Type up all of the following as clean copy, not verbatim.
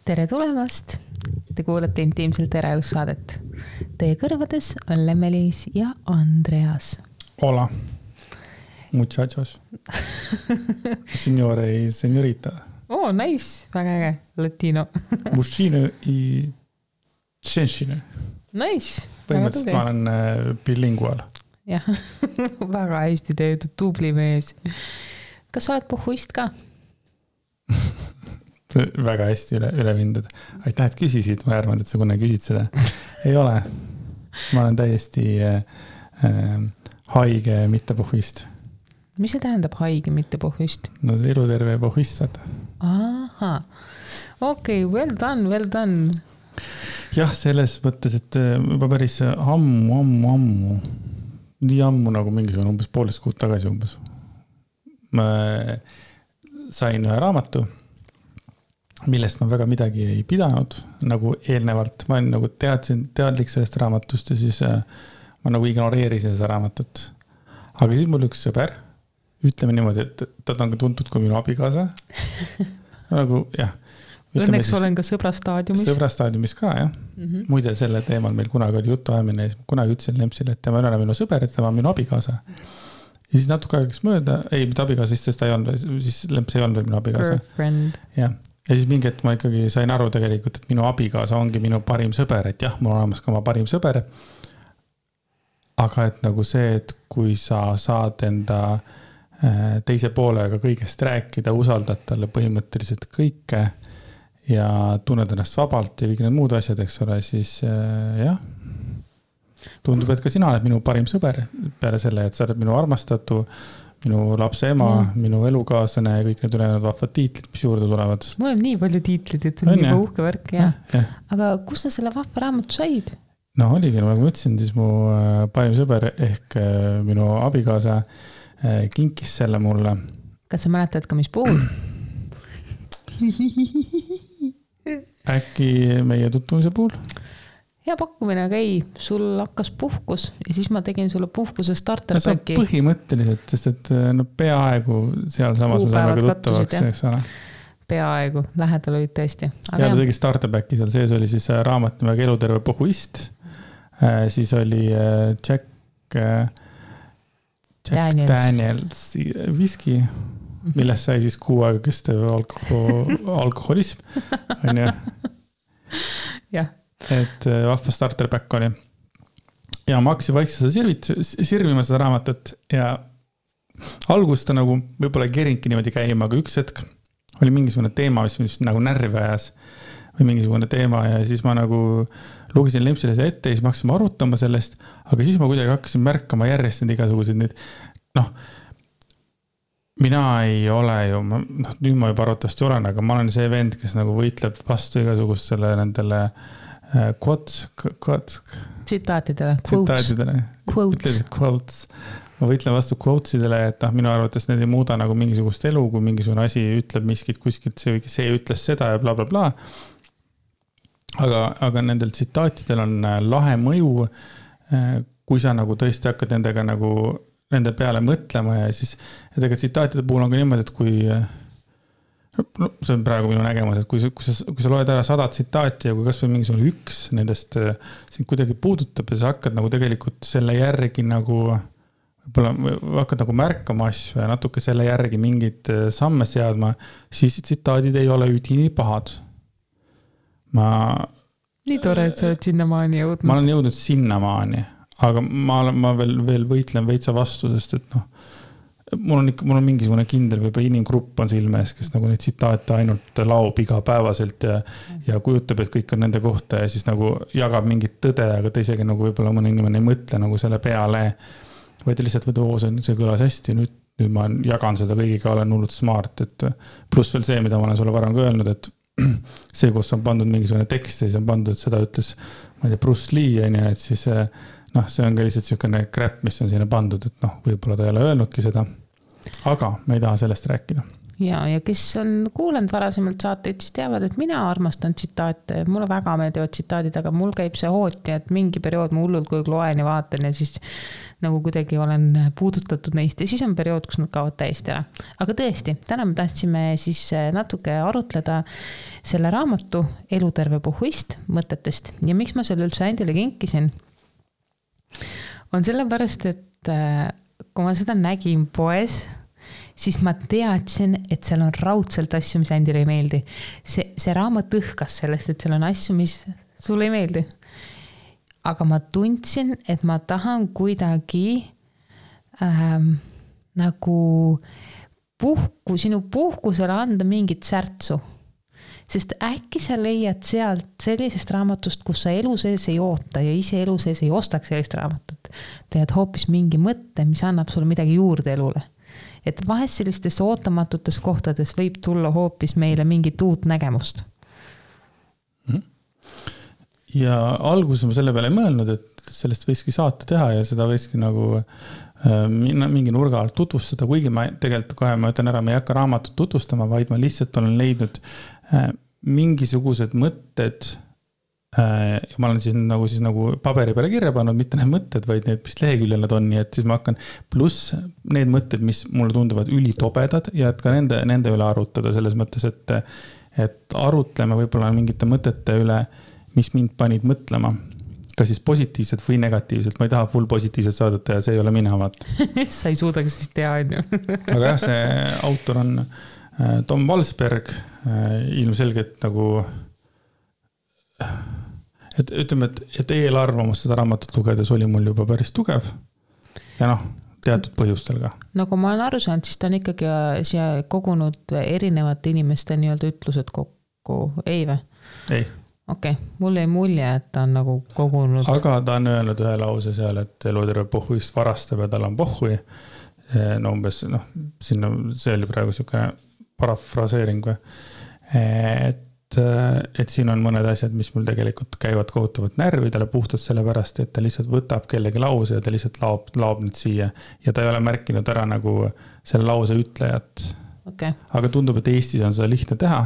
Tere tulemast! Te kuulate intiimselt eraelussaadet. Teie kõrvades on Lemmelis ja Andreas. Hola, muchachos. Signore y señorita. Oh, nice. Väga äge. Latino. Mušine i tšenšine. Nice. Põhimõtteliselt ma olen bilingual. Jah, väga hästi töötud, tubli mees. Kas oled pohhuist ka? Väga hästi üle vindud. Aitäh, et küsisid. Ma arvan, et sa kunagi küsid seda. Ei ole. Ma olen täiesti haige mitte pohhuist. Mis see tähendab haige mitte pohhuist? No see eluterve pohhuist saada. Aha. Okei, well done. Jah, selles mõttes, et juba päris ammu. Nii ammu nagu mingisugune umbes poolest kuud tagasi umbes. Ma sain ühe raamatu, millest ma väga midagi ei pidanud, nagu eelnevalt. Ma olin nagu teadlik sellest raamatust ja siis ma nagu ignoreerisin seda raamatut. Aga siis mul üks sõber, ütleme niimoodi, et ta on ka tuntud kui minu abikaasa. Nagu, jah. Õnneks olen ka sõbrastaadiumis. Sõbrastaadiumis ka, jah. Muide, selle teemal meil kunagi oli jutu ajamine ja kunagi ütlesin Lempsile, et tema ei ole minu sõber, et tema on minu abikaasa. Ja siis natuke aegaks mööda, mitte abikaasa, sest ta ei olnud, siis Lemps ei olnud veel minu abikaasa. Girlfriend. Ja siis mingi, et ma ikkagi sain aru tegelikult, et minu abikaasa ongi minu parim sõber, et jah, mul on olemas ka oma parim sõber. Aga et nagu see, et kui sa saad enda teise poolega kõigest rääkida, usaldad talle põhimõtteliselt kõike ja tunned ennast vabalt ja kõik need muud asjad, eks ole, siis jah, tundub, et ka sina oled minu parim sõber peale selle, et sa oled minu armastatu, minu lapse ema, minu elukaaslane ja kõik need ülejäänud vahvad tiitlid, mis juurde tulevad. Mul on nii palju tiitlid, et see on nii uhke värk. Ja. Aga kus sa selle vahva raamatu said? No oligi, nagu ma ütlesin, siis mu parim sõber ehk minu abikaasa kinkis selle mulle. Kas sa mäletad ka mis puhul? Äkki meie tutvumise puhul? Hea pakkumine, aga ei, sul hakkas puhkus ja siis ma tegin sulle puhkuse starterpäki. No põhimõtteliselt, sest et no peaaegu seal samas me saame ka tuttavaks, eks ole. Peaaegu, lähedal olid tõesti. Ja ta tegi starterpäki, seal sees oli siis raamat nimega Eluterve pohhuist, siis oli Jack Daniels viski, millest sai siis 6 aega kestev alkoholism. On ju? Jah. Et vahva starterback oli. Ja ma hakkasin vaikselt sirvima seda raamatut ja algust ta nagu võib-olla kerinki niimoodi käima, aga üks hetk oli mingisugune teema, mis nagu närvi ajas või mingisugune teema ja siis ma nagu lugesin Lempsile see ette ja siis ma hakkasin arutama sellest, aga siis ma kuidagi hakkasin märkama järjest need igasugused nüüd, mina ei ole ju, nüüd ma juba arvatavasti olen, aga ma olen see vend, kes nagu võitleb vastu igasugustele nendele tsitaatidele. Quotes. Ma võitlen vastu quotesidele, et minu arvates need ei muuda nagu mingisugust elu, kui mingisugune asi ütleb miskit kuskilt, see ütles seda ja bla bla bla. Aga nendel tsitaatidel on lahe mõju, kui sa nagu tõesti hakkad nendega nagu nende peale mõtlema ja siis nendega tsitaatide puhul on ka niimoodi, et kui see on praegu minu nägemus, et kui sa loed ära 100 tsitaati ja kui kas või mingisugune üks nendest sind kuidagi puudutab ja sa hakkad nagu tegelikult selle järgi nagu võib-olla hakkad nagu märkama asju ja natuke selle järgi mingid samme seadma, siis tsitaadid ei ole üdini pahad. Nii tore, et sa oled sinnamaani jõudnud. Ma olen jõudnud sinnamaani, aga ma veel võitlen veitsa vastu, sest et mul on mingisugune kindel võib-olla inimgrupp on silme ees, kes nagu neid tsitaate ainult laob igapäevaselt ja kujutab, et kõik on nende kohta ja siis nagu jagab mingit tõde, aga ta isegi nagu võib-olla mõne inimene ei mõtle nagu selle peale, vaid lihtsalt see kõlas hästi, nüüd ma jagan seda kõigiga, olen hullult smart, et pluss veel see, mida ma olen sulle varem ka öelnud, et see, kus on pandud mingisugune tekst ja siis on pandud, et seda ütles, ma ei tea, Bruce Lee, et siis see on ka lihtsalt selline crap, mis on sinna pandud, et võib-olla ta ei ole öelnudki seda, aga me ei taha sellest rääkida. ja kes on kuulanud varasemalt saateid, siis teavad, et mina armastan tsitaate, mulle väga meeldivad tsitaadid, aga mul käib see hooti, et mingi periood ma hullult kui loen ja vaatan ja siis nagu kuidagi olen puudutatud neist ja siis on periood, kus nad kaovad täiesti ära. Aga tõesti, täna me tahtsime siis natuke arutleda selle raamatu Eluterve pohhuist mõtetest ja miks ma selle üldse Andile kinkisin, on sellepärast, et kui ma seda nägin poes, siis ma teadsin, et seal on raudselt asju, mis Andile ei meeldi. See raamat õhkas sellest, et seal on asju, mis sulle ei meeldi. Aga ma tundsin, et ma tahan kuidagi nagu sinu puhkusele anda mingit särtsu. Sest äkki sa leiad sealt sellisest raamatust, kus sa elu sees ei oota ja ise elu sees ei ostaks sellist raamatut. Leiad hoopis mingi mõtte, mis annab sulle midagi juurde elule. Et vahest sellistes ootamatutes kohtades võib tulla hoopis meile mingit uut nägemust. Ja alguses ma selle peale ei mõelnud, et sellest võiski saate teha ja seda võiski nagu mingi nurga alt tutvustada, kuigi ma tegelikult kohe ma ütlen ära, ma ei hakka raamatut tutvustama, vaid ma lihtsalt olen leidnud mingisugused mõtted ja ma olen siis nagu paberi peale kirja pannud, mitte need mõtted, vaid need, mis leheküljel nad on, nii et siis ma hakkan pluss need mõtted, mis mulle tunduvad ülitobedad ja et ka nende üle arutada selles mõttes, et arutleme võib-olla mingite mõtete üle, mis mind panid mõtlema, kas siis positiivselt või negatiivselt, ma ei taha full positiivselt saadata ja see ei ole mina, vaat. Sa ei suudaks vist teha, on ju. Aga jah, see autor on Tom Walsberg, ilmselgelt nagu et ütleme, et eelarvamus seda raamatut lugedes oli mul juba päris tugev ja teatud põhjustel ka. Nagu ma olen aru saanud, siis ta on ikkagi siia kogunud erinevate inimeste nii-öelda ütlused kokku, ei või? Ei. Okei, mul ei mulje, et ta on nagu kogunud. Aga ta on öelnud ühe lause seal, et eluterve pohhuist varastab ja tal on pohhui. No umbes, sinna, see oli praegu selline parafraseering või. Et siin on mõned asjad, mis mul tegelikult käivad kohutavalt närvidele puhtalt sellepärast, et ta lihtsalt võtab kellegi lause ja ta lihtsalt laob nüüd siia ja ta ei ole märkinud ära nagu selle lause ütlejat. Okay. Aga tundub, et Eestis on seda lihtne teha.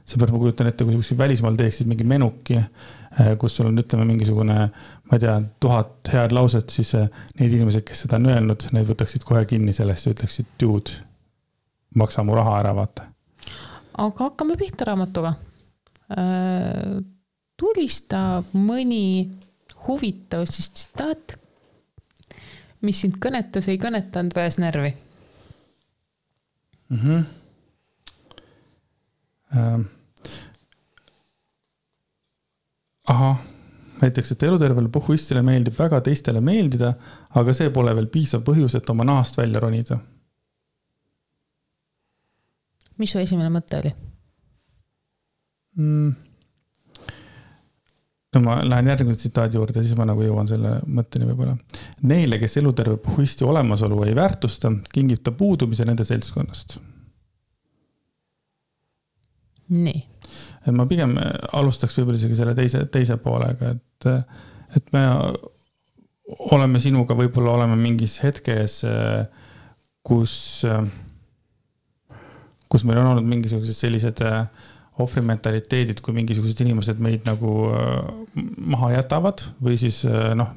Seepärast ma kujutan ette, kui välismaal teeksid mingi menuki, kus sul on ütleme mingisugune, ma ei tea, 1000 head lauset, siis need inimesed, kes seda on öelnud, need võtaksid kohe kinni sellest ja ütleksid, dude, maksa mu raha ära, vaata. Aga hakkame pihta raamatuga. Tulista mõni huvitav siis tsitaat, mis sind kõnetas, ei kõnetanud või ajas närvi? Näiteks, et elutervele pohhuistile meeldib väga teistele meeldida, aga see pole veel piisav põhjus, et oma nahast välja ronida. Mis su esimene mõte oli? Ma lähen järgmise tsitaadi juurde, siis ma nagu jõuan selle mõtteni võib-olla. Neile, kes eluterve pohhuisti olemasolu ei väärtusta, kingib ta puudumise nende seltskonnast. Nii. Ma pigem alustaks võib-olla isegi selle teise poolega, et me oleme sinuga võib-olla oleme mingis hetkes, kus meil on olnud mingisugused sellised ohvrimentaliteedid, kui mingisugused inimesed meid nagu maha jätavad või siis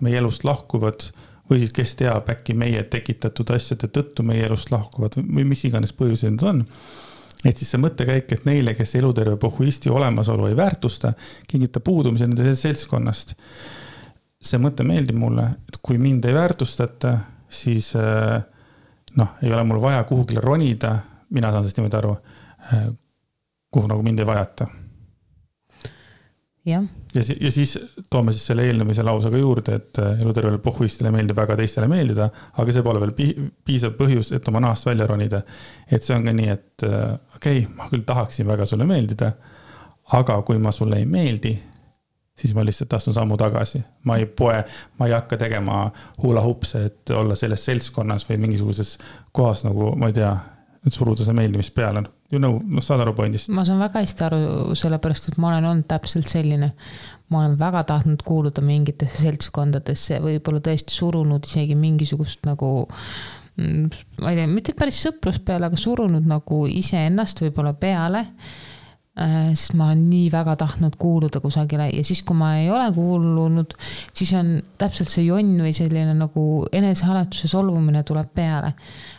meie elust lahkuvad või siis kes teab äkki meie tekitatud asjade tõttu meie elust lahkuvad või mis iganes põhjused need on. Et siis see mõttekäik, et neile, kes eluterve pohhuisti olemasolu ei väärtusta, kingib ta puudumise nende seltskonnast. See mõte meeldib mulle, et kui mind ei väärtustata, siis ei ole mul vaja kuhugile ronida, mina saan sellest niimoodi aru, kuhu nagu mind ei vajata. Ja siis toome siis selle eelnemise lausega juurde, et elutervele pohhuistile meeldib väga teistele meeldida, aga see pole veel piisav põhjus, et oma nahast välja ronida. Et see on ka nii, et ma küll tahaksin väga sulle meeldida, aga kui ma sulle ei meeldi, siis ma lihtsalt astun sammu tagasi. Ma ei hakka tegema hula hupse, et olla selles seltskonnas või mingisuguses kohas nagu, ma ei tea, et suruda see meeldimist peale. Saad aru pointist? Ma saan väga hästi aru sellepärast, et ma olen olnud täpselt selline. Ma olen väga tahtnud kuuluda mingitesse seltskondadesse, võib-olla tõesti surunud isegi mingisugust nagu ma ei tea, mitte päris sõprus peale, aga surunud nagu iseennast võib-olla peale, sest ma olen nii väga tahtnud kuuluda kusagile ja siis, kui ma ei ole kuulunud, siis on täpselt see jonn või selline nagu enesehaletuse solvumine tuleb peale.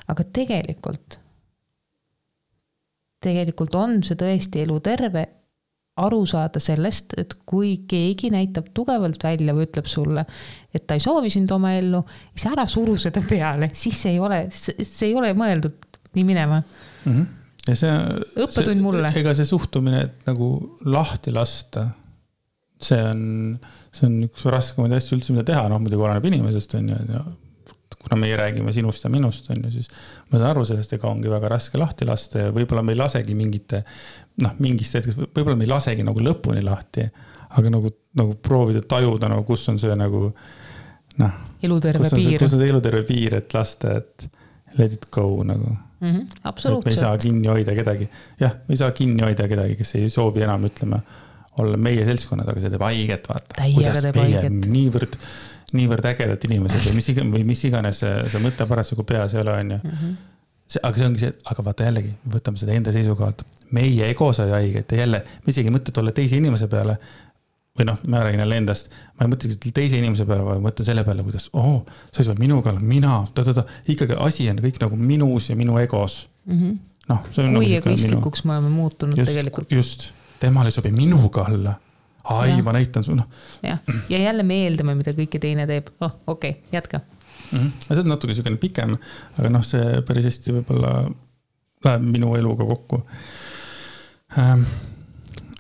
Aga tegelikult on see tõesti elu terve aru saada sellest, et kui keegi näitab tugevalt välja või ütleb sulle, et ta ei soovi sind oma ellu, siis ära suru seda peale, siis see ei ole mõeldud nii minema. Ja õppetund mulle. Ega see suhtumine, et nagu lahti lasta, see on üks raskemaid asju üldse, mida teha, muidugi oleneb inimesest, on ju, kuna meie räägime sinust ja minust, on ju, siis ma saan aru sellest, ega ongi väga raske lahti lasta ja võib-olla me ei lasegi mingist hetkest, võib-olla me ei lasegi nagu lõpuni lahti, aga nagu proovida tajuda, kus on see nagu, eluterve piir. Kus on see eluterve piir, et lasta, et let it go nagu. Absoluutselt. Et me ei saa kinni hoida kedagi. Jah, me ei saa kinni hoida kedagi, kes ei soovi enam, ütleme, olla meie seltskonnad, aga see teeb haiget, vaata. Kuidas meie niivõrd ägedad inimesed või mis iganes see mõte parasjagu peas ei ole, on ju. Aga see ongi see, aga vaata jällegi, võtame seda enda seisukohalt. Meie ego sai haiget ja jälle, me isegi mõtled olla teise inimese peale, või ma räägin jälle endast, ma ei mõtle teise inimese peale, vaid mõtlen selle peale, kuidas, sa ei saa minuga olla, mina, ikkagi asi on kõik nagu minus ja minu egos. Kui egoistlikuks me oleme muutunud tegelikult. Just, temal ei sobi minuga olla. Ma näitan su, Ja jälle me eeldame, mida kõike teine teeb. Okei, jätka. See on natuke selline pikem, aga see päris hästi võib-olla läheb minu eluga kokku.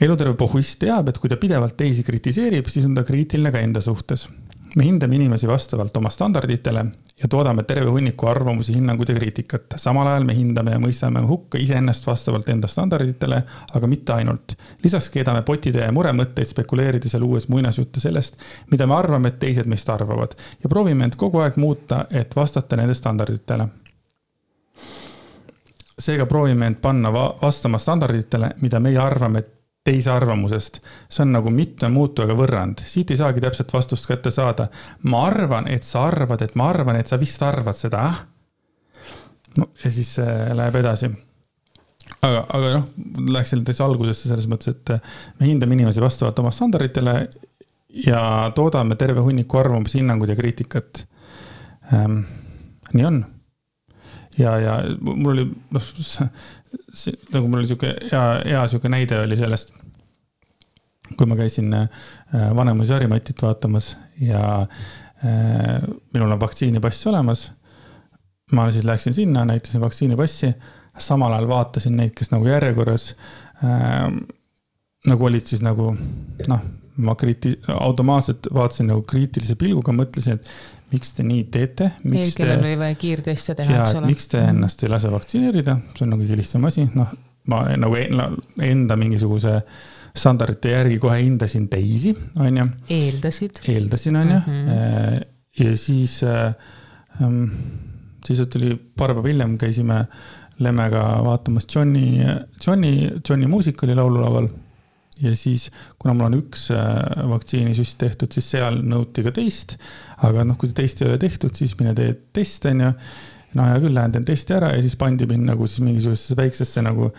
Eluterve pohhuist teab, et kui ta pidevalt teisi kritiseerib, siis on ta kriitiline ka enda suhtes. Me hindame inimesi vastavalt oma standarditele ja toodame terve hunniku arvamusi, hinnangud ja kriitikat. Samal ajal me hindame ja mõistame hukka iseennast vastavalt enda standarditele, aga mitte ainult. Lisaks keedame potide ja muremõtteid spekuleerides ja luues muinasjutte sellest, mida me arvame, et teised meist arvavad ja proovime end kogu aeg muuta, et vastata nende standarditele. Seega proovime end panna vastama standarditele, mida meie arvame teise arvamusest. See on nagu mitme muutujaga võrrand. Siit ei saagi täpselt vastust kätte saada. Ma arvan, et sa arvad, et ma arvan, et sa vist arvad seda. Ja siis läheb edasi. Aga läheks selle teise algusesse selles mõttes, et me hindame inimesi vastavalt oma standarditele ja toodame terve hunniku arvamusi, hinnangud ja kriitikat. Nii on. Ja mul oli nagu mul oli hea siuke näide oli sellest, kui ma käisin Vanemuise Harimatit vaatamas ja minul on vaktsiinipass olemas. Ma siis läksin sinna, näitasin vaktsiinipassi, samal ajal vaatasin neid, kes nagu järjekorras nagu olid siis nagu ma automaatselt vaatasin nagu kriitilise pilguga, mõtlesin, et miks te nii teete? Neil, kellel oli vaja kiirteste teha, eks ole. Miks te ennast ei lase vaktsineerida? See on nagu kõige lihtsam asi. Ma nagu enda mingisuguse standardite järgi kohe hindasin teisi, on ju. Eeldasin, on ju. Ja siis tuli paar päeva hiljem, käisime Lemmega vaatamas Johnny muusikali laululaval. Ja siis, kuna mul on üks vaktsiinisüst tehtud, siis seal nõuti ka teist, aga kui teist ei ole tehtud, siis mine tee test, on ju. Ja küll lähen teen testi ära ja siis pandi mind nagu siis mingisugusesse väiksesse nagu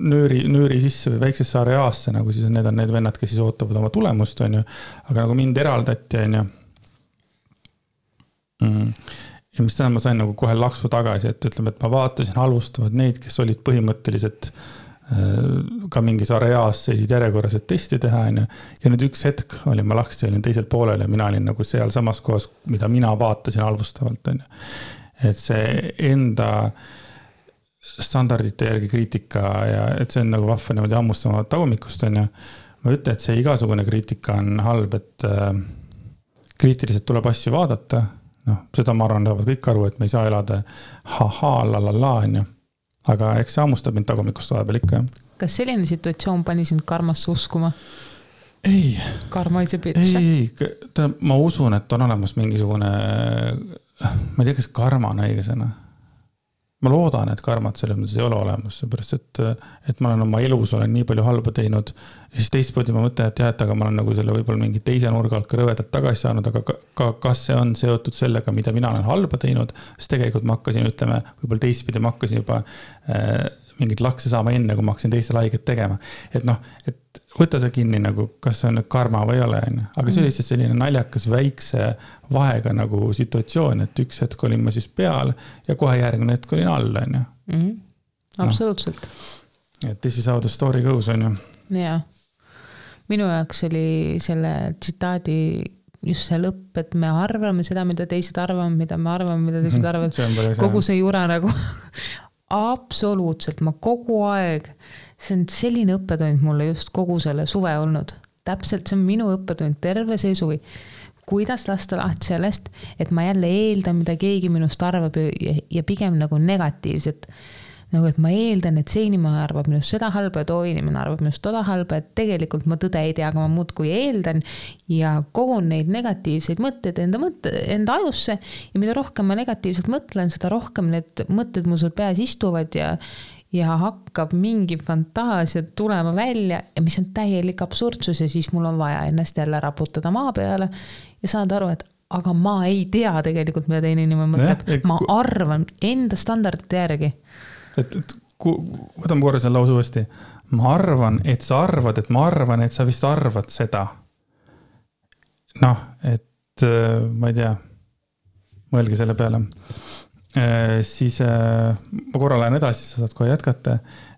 nööri sisse või väiksesse areaasse, nagu siis need on need vennad, kes siis ootavad oma tulemust, on ju. Aga nagu mind eraldati, on ju. Ja mis tähendab, ma sain nagu kohe laksu tagasi, et ütleme, et ma vaatasin halvustavad neid, kes olid põhimõtteliselt ka mingis areaas seisid järjekorras, et testi teha. Ja nüüd üks hetk ma laksti, olin teisel poolel ja mina olin nagu seal samas kohas, mida mina vaatasin halvustavalt. Et see enda standardite järgi kriitika ja et see on nagu vahva niimoodi hammustama tagumikust. Ma ütlen, et see igasugune kriitika on halb, et kriitiliselt tuleb asju vaadata. Seda ma arvan, lähevad kõik aru, et me ei saa elada lalala. Aga eks see hammustab mind tagumikust vahepeal ikka. Kas selline situatsioon pani sind karmasse uskuma? Ei. Karma is a bitch. Ei. Ma usun, et on olemas mingisugune, ma ei tea, kas karma on õige sõna. ma loodan, et karmat selles mõttes ei ole olemas, seepärast, et ma olen oma elus olen nii palju halba teinud ja siis teistpidi ma mõtlen, et jah, et aga ma olen nagu selle võib-olla mingi teise nurga alt ka rõvedalt tagasi saanud, aga kas see on seotud sellega, mida mina olen halba teinud, siis tegelikult ma hakkasin, ütleme, võib-olla teistpidi ma hakkasin juba mingit lakse saama enne, kui ma hakkasin teisele haiget tegema. Et noh, et võta see kinni nagu, kas see on karma või ei ole, aga see oli lihtsalt selline naljakas väikse vahega nagu situatsioon, et üks hetk olin ma siis peal ja kohe järgmine hetk olin all, on ju. Absoluutselt. Et this is how the story goes, on ju. Jaa. Minu jaoks oli selle tsitaadi just see lõpp, et me arvame seda, mida teised arvame, mida me arvame, mida teised arvavad. Kogu see jura nagu absoluutselt, ma kogu aeg, see on selline õppetund mulle just kogu selle suve olnud. Täpselt see on minu õppetund terve see suvi. Kuidas lasta lahti sellest, et ma jälle eeldan, mida keegi minust arvab ja pigem nagu negatiivset. Nagu, et ma eeldan, et see inimene arvab minust seda halba ja too inimene arvab minust toda halba, et tegelikult ma tõde ei tea, aga ma muud kui eeldan ja kogun neid negatiivseid mõtteid enda ajusse ja mida rohkem ma negatiivselt mõtlen, seda rohkem need mõtted mul seal peas istuvad ja hakkab mingi fantaasia tulema välja ja mis on täielik absurdsus ja siis mul on vaja ennast jälle raputada maa peale ja saada aru, et aga ma ei tea tegelikult, mida teine inimene mõtleb. Ma arvan enda standardite järgi. Võtame korra selle lause uuesti. Ma arvan, et sa arvad, et ma arvan, et sa vist arvad seda. Noh, et ma ei tea, mõelge selle peale. Siis ma korra lähen edasi, sa saad kohe jätkata.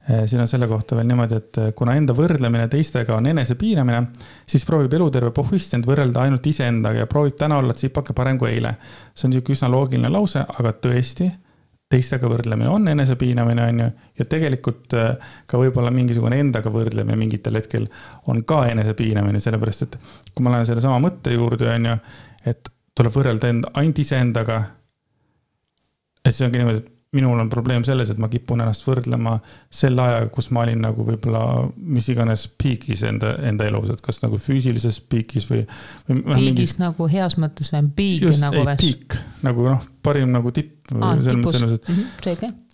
Siin on selle kohta veel niimoodi, et kuna enda võrdlemine teistega on enese piinamine, siis proovib eluterve pohvist end võrrelda ainult iseendaga ja proovib täna olla tsipake parem kui eile. See on üsna loogiline lause, aga tõesti, teistega võrdlemine on enese piinamine, on ju, ja tegelikult ka võib-olla mingisugune endaga võrdlemine mingitel hetkel on ka enese piinamine, sellepärast, et kui ma lähen selle sama mõtte juurde, on ju, et tuleb võrrelda ainult iseendaga, et see ongi niimoodi, et minul on probleem selles, et ma kipun ennast võrdlema selle ajaga, kus ma olin nagu võib-olla mis iganes piikis enda elus, et kas nagu füüsilises piikis või piigis nagu heas mõttes või piik just, nagu väs. Piik, nagu parim nagu tipp.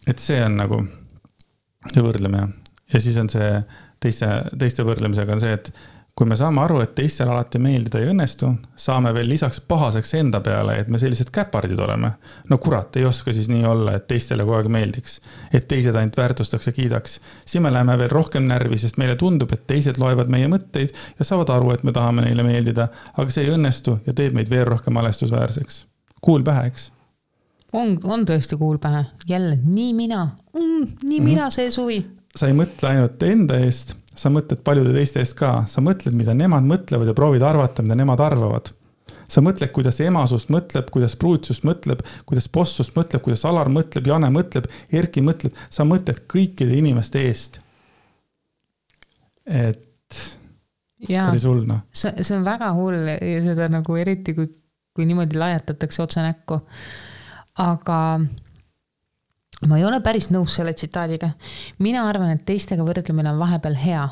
Et see on nagu see võrdlemine. Ja siis on see teiste võrdlemisega on see, et kui me saame aru, et teistel alati meeldida ei õnnestu, saame veel lisaks pahaseks enda peale, et me sellised käpardid oleme. No kurat, ei oska siis nii olla, et teistele kogu aeg meeldiks. Et teised ainult väärtustaks ja kiidaks. Siis me läheme veel rohkem närvi, sest meile tundub, et teised loevad meie mõtteid ja saavad aru, et me tahame neile meeldida, aga see ei õnnestu ja teeb meid veel rohkem alestusväärseks. Kuul pähe, eks? On tõesti kuul pähe. Jälle, nii mina see suvi. Sa ei mõtle ainult enda eest, sa mõtled paljude teiste eest ka. Sa mõtled, mida nemad mõtlevad ja proovid arvata, mida nemad arvavad. Sa mõtled, kuidas emasust mõtleb, kuidas pruutsust mõtleb, kuidas bossust mõtleb, kuidas Alar mõtleb, Jane mõtleb, Erki mõtleb. Sa mõtled kõikide inimeste eest. Et päris hull, noh. See on väga hull ja seda nagu eriti, kui niimoodi laiatatakse otse näkku. Aga ma ei ole päris nõus selle tsitaadiga. Mina arvan, et teistega võrdlemine on vahepeal hea,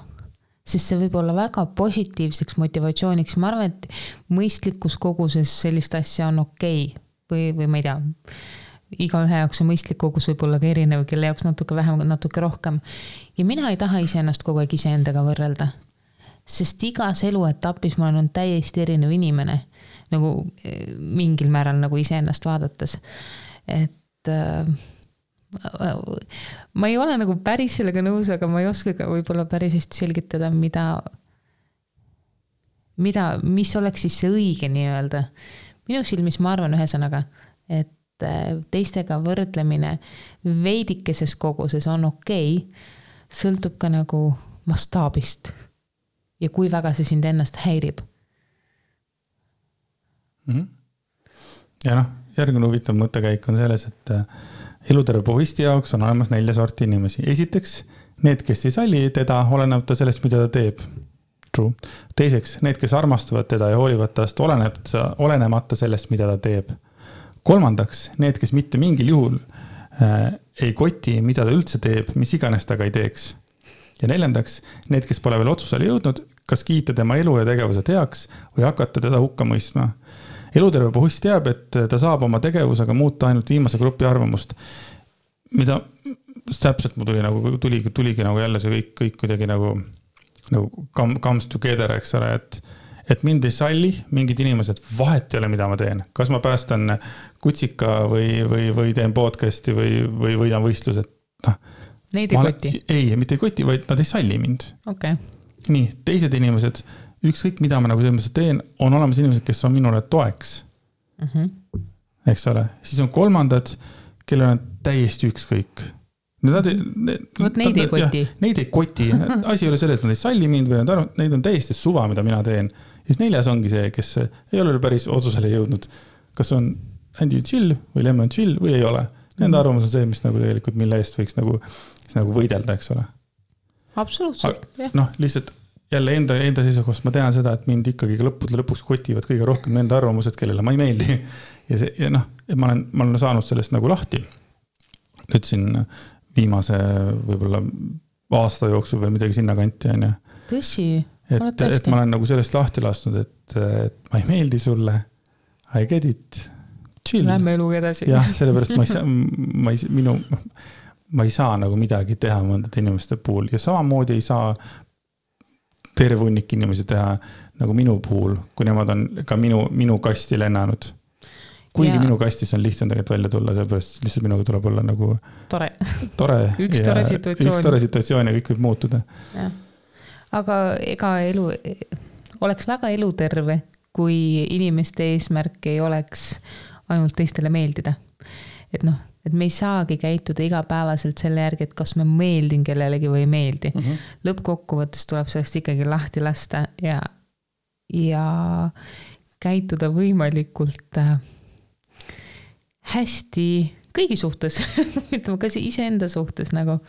sest see võib olla väga positiivseks motivatsiooniks. Ma arvan, et mõistlikus koguses sellist asja on okei. Või ma ei tea, iga ühe jaoks on mõistlik kogus võib olla ka erinev, kelle jaoks natuke vähem, natuke rohkem. Ja mina ei taha iseennast kogu aeg iseendaga võrrelda, sest igas eluetapis ma olen täiesti erinev inimene, nagu mingil määral nagu iseennast vaadates. Et ma ei ole nagu päris sellega nõus, aga ma ei oska ka võib-olla päris hästi selgitada, mis oleks siis see õige nii öelda. Minu silmis ma arvan ühesõnaga, et teistega võrdlemine veidikeses koguses on okei, sõltub ka nagu mastaabist ja kui väga see sind ennast häirib. Ja järgmine huvitav mõttekäik on selles, et eluterve pohisti jaoks on olemas 4 sorti inimesi. Esiteks, need, kes ei salli teda, olenemata sellest, mida ta teeb. True. Teiseks, need, kes armastavad teda ja hoolivad tast, olenemata sellest, mida ta teeb. Kolmandaks, need, kes mitte mingil juhul ei koti, mida ta üldse teeb, mis iganes taga ei teeks. Ja 4, need, kes pole veel otsusele jõudnud, kas kiita tema elu ja tegevused heaks või hakata teda hukka mõistma. Eluterve pohust teab, et ta saab oma tegevusega muuta ainult viimase grupi arvamust. mida täpselt mul tuligi nagu jälle see kõik kuidagi nagu comes together, eks ole, et mind ei salli mingid inimesed, vahet ei ole, mida ma teen. Kas ma päästan kutsika või teen podcasti või võidan võistlused. Neid ei koti? Ei, mitte ei koti, vaid nad ei salli mind. Okay. Nii, teised inimesed, ükskõik mida ma nagu selles teen, on olemas inimesed, kes on minule toeks. Eks ole. Siis on kolmandad, kellel on täiesti ükskõik. Neid ei koti. Neid ei koti. Asi ei ole selles, et nad ei salli mind või neid on täiesti suva, mida mina teen. Ja siis 4. ongi see, kes ei ole päris otsusele jõudnud. Kas on Andy chill või Lemon chill või ei ole. Nende arvamus on see, mis nagu tegelikult mille eest võiks nagu võidelda, eks ole. Absoluutselt, jah. Lihtsalt jälle enda seisukohast ma tean seda, et mind ikkagi lõpuks kotivad kõige rohkem nende arvamused, kellele ma ei meeldi. Ja ma olen saanud sellest nagu lahti. Nüüd siin viimase võib-olla aasta jooksul või midagi sinna kanti on. Tõsi? Et ma olen nagu sellest lahti lasnud, et ma ei meeldi sulle. I get it. Chill. Lähme eluga edasi. Jah, sellepärast ma ei saa nagu midagi teha mõndade inimeste puhul. Ja samamoodi ei saa terve hunnik inimesi teha nagu minu puhul, kui nemad on ka minu kasti lennanud. Kuigi minu kastis on lihtsam tegelikult välja tulla, sellepärast lihtsalt minuga tuleb olla nagu tore. Üks tore situatsioon ja kõik võib muutuda. Ja. Aga ega oleks väga eluterve, kui inimeste eesmärk ei oleks ainult teistele meeldida. Et me ei saagi käituda igapäevaselt selle järgi, et kas me meeldin kellelegi või ei meeldi. Lõppkokkuvõttes tuleb sellest ikkagi lahti lasta ja käituda võimalikult hästi kõigi suhtes, ütleme ka iseenda suhtes nagu.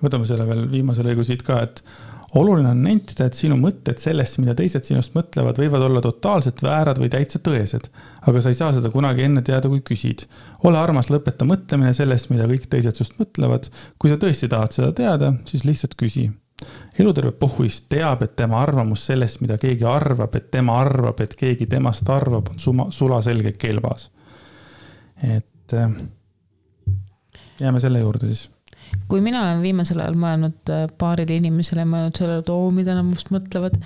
Võtame selle veel viimase lõigu siit ka, et oluline on nentida, et sinu mõtted sellest, mida teised sinust mõtlevad, võivad olla totaalselt väärad või täitsa tõesed, aga sa ei saa seda kunagi enne teada, kui küsid. Ole armas, lõpeta mõtlemine sellest, mida kõik teised sust mõtlevad. Kui sa tõesti tahad seda teada, siis lihtsalt küsi. Eluterve pohhuist teab, et tema arvamus sellest, mida keegi arvab, et tema arvab, et keegi temast arvab, on sulaselge kelbas. Et jääme selle juurde siis. Kui mina olen viimasel ajal mõelnud paarile inimesele, mõelnud sellele, mida nad must mõtlevad,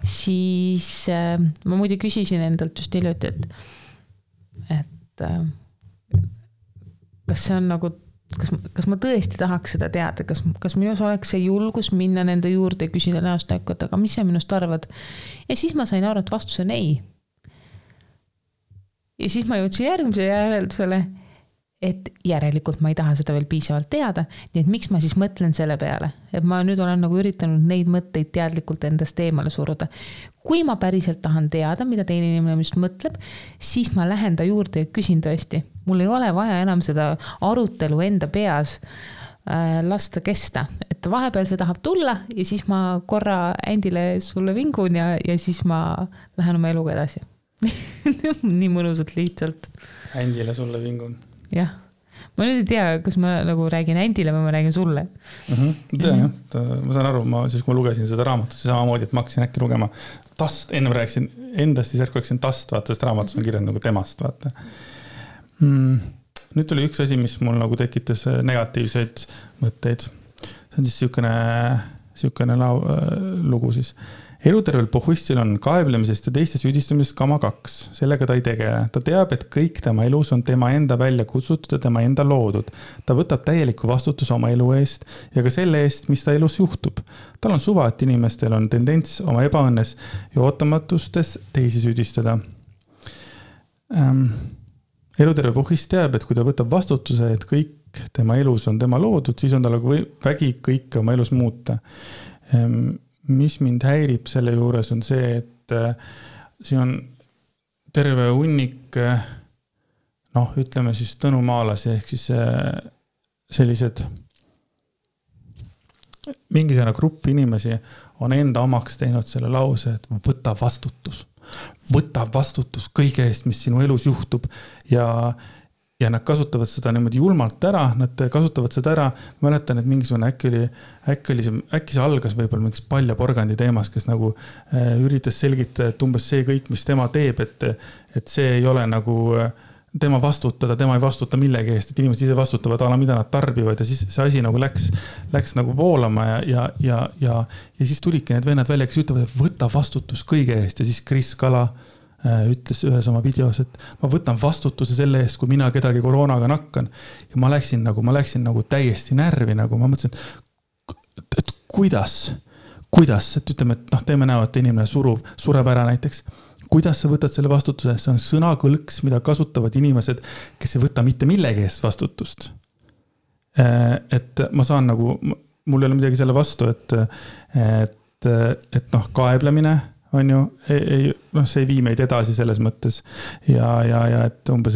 siis ma muidu küsisin endalt just hiljuti, et kas see on nagu, kas ma tõesti tahaks seda teada, kas minus oleks see julgus minna nende juurde ja küsida näost näkku, et aga mis sa minust arvad? Ja siis ma sain aru, et vastus on ei. Ja siis ma jõudsin järgmise järeldusele, et järelikult ma ei taha seda veel piisavalt teada, nii et miks ma siis mõtlen selle peale, et ma nüüd olen nagu üritanud neid mõtteid teadlikult endast eemale suruda. Kui ma päriselt tahan teada, mida teine inimene just mõtleb, siis ma lähen ta juurde ja küsin tõesti. Mul ei ole vaja enam seda arutelu enda peas lasta kesta, et vahepeal see tahab tulla ja siis ma korra Andile sulle vingun ja siis ma lähen oma eluga edasi. Nii mõnusalt lihtsalt. Andile sulle vingun. Jah. Ma nüüd ei tea, kas ma nagu räägin Andile või ma räägin sulle. Tean jah. Ma saan aru, siis kui ma lugesin seda raamatut, siis samamoodi, et ma hakkasin äkki lugema tast, enne ma rääkisin endast, siis järku hakkasin tast, vaata, sest raamatus on kirjad nagu temast, vaata. Nüüd tuli üks asi, mis mul nagu tekitas negatiivseid mõtteid. See on siis siukene lugu siis. Elutervel pohhuistil on kaeblemisest ja teiste süüdistamisest kama 2. Sellega ta ei tegele. Ta teab, et kõik tema elus on tema enda välja kutsutud ja tema enda loodud. Ta võtab täieliku vastutuse oma elu eest ja ka selle eest, mis ta elus juhtub. Tal on suva, et inimestel on tendents oma ebaõnnes ja ootamatustes teisi süüdistada. Eluterve pohhuist teab, et kui ta võtab vastutuse, et kõik tema elus on tema loodud, siis on tal vägi kõike oma elus muuta. Mis mind häirib selle juures on see, et siin on terve hunnik, ütleme siis tõnumaalasi, ehk siis sellised mingisugune grupp inimesi on enda omaks teinud selle lause, et võta vastutus kõige eest, mis sinu elus juhtub ja nad kasutavad seda niimoodi julmalt ära, nad kasutavad seda ära, mäletan, et mingisugune äkki see algas võib-olla mingis paljaporgandi teemas, kes nagu üritas selgitada, et umbes see kõik, mis tema teeb, et see ei ole nagu tema vastutada, tema ei vastuta millegi eest, et inimesed ise vastutavad ala, mida nad tarbivad ja siis see asi nagu läks nagu voolama ja siis tulidki need vennad välja, kes ütlevad, et võta vastutus kõige eest ja siis Kris Kala ütles ühes oma videos, et ma võtan vastutuse selle eest, kui mina kedagi koroonaga nakkan ja ma läksin nagu täiesti närvi, nagu ma mõtlesin, et kuidas, et ütleme, et teeme näo, et inimene sureb ära näiteks. Kuidas sa võtad selle vastutuse? See on sõnakõlks, mida kasutavad inimesed, kes ei võta mitte millegi eest vastutust. Et ma saan nagu, mul ei ole midagi selle vastu, et kaeblemine on ju, see ei vii meid edasi selles mõttes. Ja et umbes,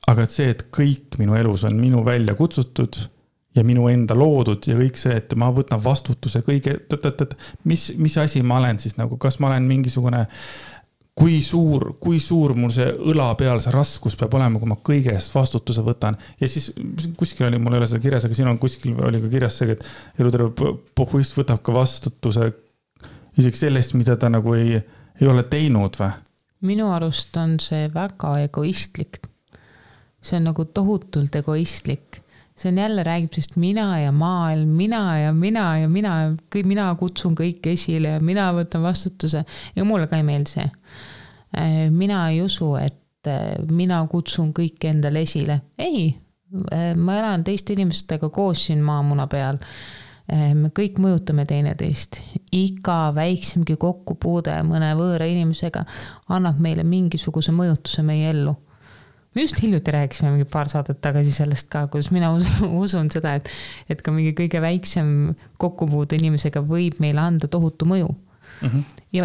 aga et see, et kõik minu elus on minu välja kutsutud ja minu enda loodud ja kõik see, et ma võtan vastutuse kõige, mis asi ma olen siis nagu, kas ma olen mingisugune, kui suur mul see õla peal see raskus peab olema, kui ma kõige eest vastutuse võtan. Ja siis kuskil oli, mul ei ole seda kirjas, aga siin on kuskil oli ka kirjas see, et eluterve pohhuist võtab ka vastutuse isegi sellest, mida ta nagu ei ole teinud või? Minu arust on see väga egoistlik. See on nagu tohutult egoistlik. See on jälle räägib sest mina ja maailm, mina kutsun kõik esile ja mina võtan vastutuse ja mulle ka ei meeldi see. Mina ei usu, et mina kutsun kõik endale esile. Ei, ma elan teiste inimestega koos siin maamuna peal. Me kõik mõjutame teineteist. Iga väiksemgi kokkupuude mõne võõra inimesega annab meile mingisuguse mõjutuse meie ellu. Me just hiljuti rääkisime mingi paar saadet tagasi sellest ka, kuidas mina usun seda, et ka mingi kõige väiksem kokkupuude inimesega võib meile anda tohutu mõju. Mm-hmm.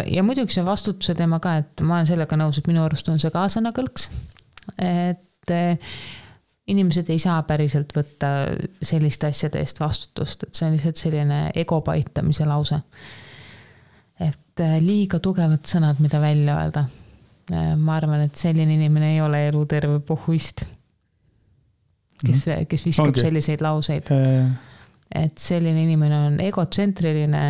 Ja muidugi see vastutuse teema ka, et ma olen sellega nõus, et minu arust on see ka sõnakõlks. Et inimesed ei saa päriselt võtta selliste asjade eest vastutust, et see on lihtsalt selline ego paitamise lause. Et liiga tugevad sõnad, mida välja öelda. Ma arvan, et selline inimene ei ole eluterve pohhuist, kes viskab selliseid lauseid. Et selline inimene on egotsentriline.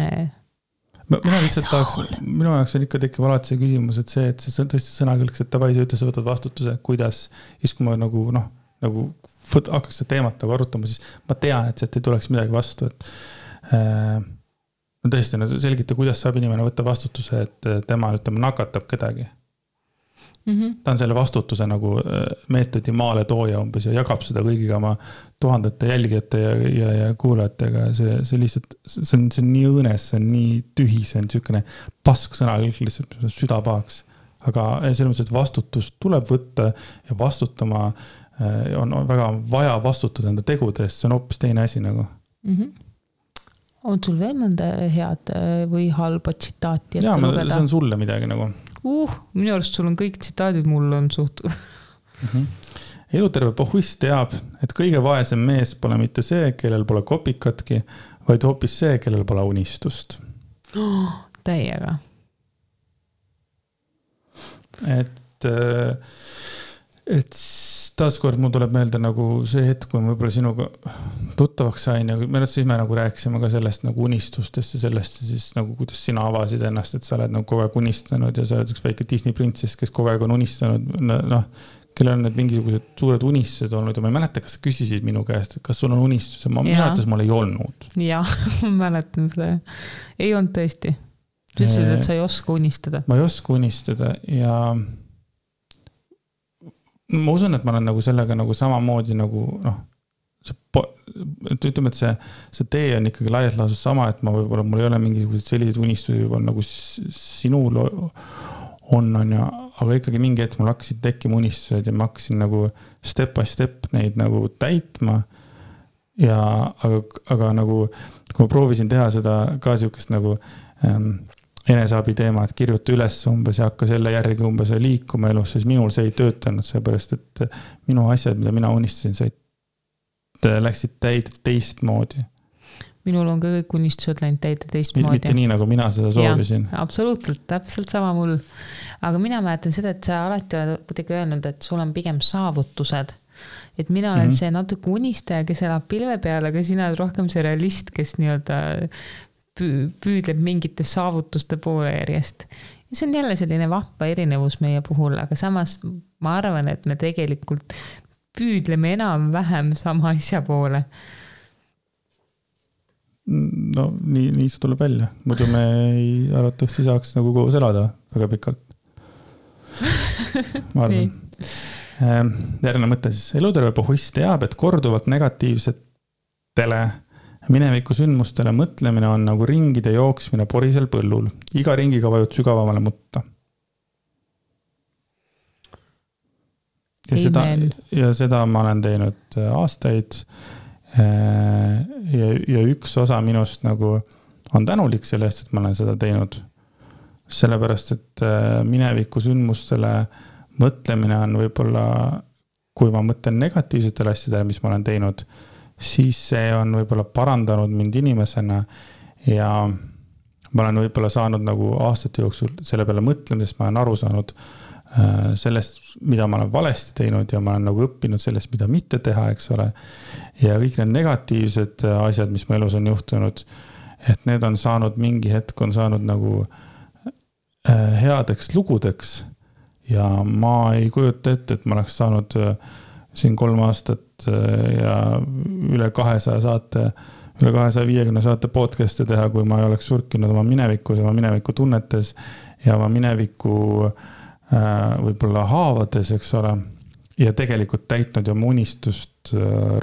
Minu jaoks on ikka tekkiv alati see küsimus, et see tõesti sõnakõlks, et tavai, sa ütles, võtad vastutuse, kuidas, siis kui ma nagu hakkaks seda teemat nagu arutama, siis ma tean, et ei tuleks midagi vastu, et tõesti, selgita, kuidas saab inimene võtta vastutuse, et tema nakatab kedagi. Ta on selle vastutuse nagu meetodi maale tooja umbes ja jagab seda kõigiga oma tuhandete jälgijate ja kuulajatega. See lihtsalt, see on nii õõnes, see on nii tühi, see on niisugune pask sõna lihtsalt südapahaks. Aga selles mõttes, et vastutus tuleb võtta ja vastutama on väga vaja vastutada enda tegude eest, see on hoopis teine asi nagu. On sul veel mõnda head või halba tsitaati? Jaa, see on sulle midagi nagu. Minu arust sul on kõik tsitaadid, mul on suht. Eluterve pohhuist teab, et kõige vaesem mees pole mitte see, kellel pole kopikatki, vaid hoopis see, kellel pole unistust. Täiega. Et taaskord mul tuleb meelde nagu see hetk, kui ma võib-olla sinuga tuttavaks sain ja siis me nagu rääkisime ka sellest nagu unistustest ja sellest siis nagu kuidas sina avasid ennast, et sa oled nagu kogu aeg unistanud ja sa oled üks väike Disney prinsess, kes kogu aeg on unistanud, kellel on need mingisugused suured unistused olnud ja ma ei mäleta, kas sa küsisid minu käest, et kas sul on unistus ja ma mäletas, mul ei olnud. Jah, ma mäletan seda. Ei olnud tõesti. Sa ütlesid, et sa ei oska unistada. Ma ei oska unistada ja ma usun, et ma olen nagu sellega nagu samamoodi nagu ütleme, et see tee on ikkagi laias laasus sama, et ma võib-olla mul ei ole mingisugused sellised unistusi võib-olla nagu sinul on ja, aga ikkagi mingi hetk mul hakkasid tekkima unistused ja ma hakkasin nagu step by step neid nagu täitma ja aga nagu kui ma proovisin teha seda ka siukest nagu eneseabi teema, et kirjuta üles umbes ja hakka selle järgi umbes liikuma elus, siis minul see ei töötanud, seepärast, et minu asjad, mida mina unistasin, läksid täide teistmoodi. Minul on ka kõik unistused läinud täide teistmoodi. Mitte nii, nagu mina seda soovisin. Ja, absoluutselt, täpselt sama mul. Aga mina mäletan seda, et sa alati oled kuidagi öelnud, et sul on pigem saavutused. Et mina olen see natuke unistaja, kes elab pilve peal, aga sina oled rohkem see realist, kes nii-öelda püüdleb mingite saavutuste poole järjest. see on jälle selline vahva erinevus meie puhul, aga samas ma arvan, et me tegelikult püüdleme enam-vähem sama asja poole. No nii see tuleb välja. Muidu me ei arvatavasti saaks nagu koos elada väga pikalt. Ma arvan. Järgmine mõte siis. Eluterve pohhuist teab, et korduvalt negatiivsetele mineviku sündmustele mõtlemine on nagu ringide jooksmine porisel põllul. Iga ringiga vajud sügavamale mutta. Ja seda ma olen teinud aastaid. Ja üks osa minust nagu on tänulik sellest, et ma olen seda teinud. Sellepärast, et mineviku sündmustele mõtlemine on võib-olla, kui ma mõtlen negatiivsetele asjadele, mis ma olen teinud, siis see on võib-olla parandanud mind inimesena ja ma olen võib-olla saanud nagu aastate jooksul selle peale mõtlemisest, ma olen aru saanud sellest, mida ma olen valesti teinud ja ma olen nagu õppinud sellest, mida mitte teha, eks ole. Ja kõik need negatiivsed asjad, mis mu elus on juhtunud, et need on saanud mingi hetk, on saanud nagu headeks lugudeks ja ma ei kujuta ette, et ma oleks saanud siin 3 aastat ja üle 200 saate, üle 250 saate podcast'e teha, kui ma ei oleks surkinud oma minevikus, oma mineviku tunnetes ja oma mineviku võib-olla haavades, eks ole, ja tegelikult täitnud oma unistust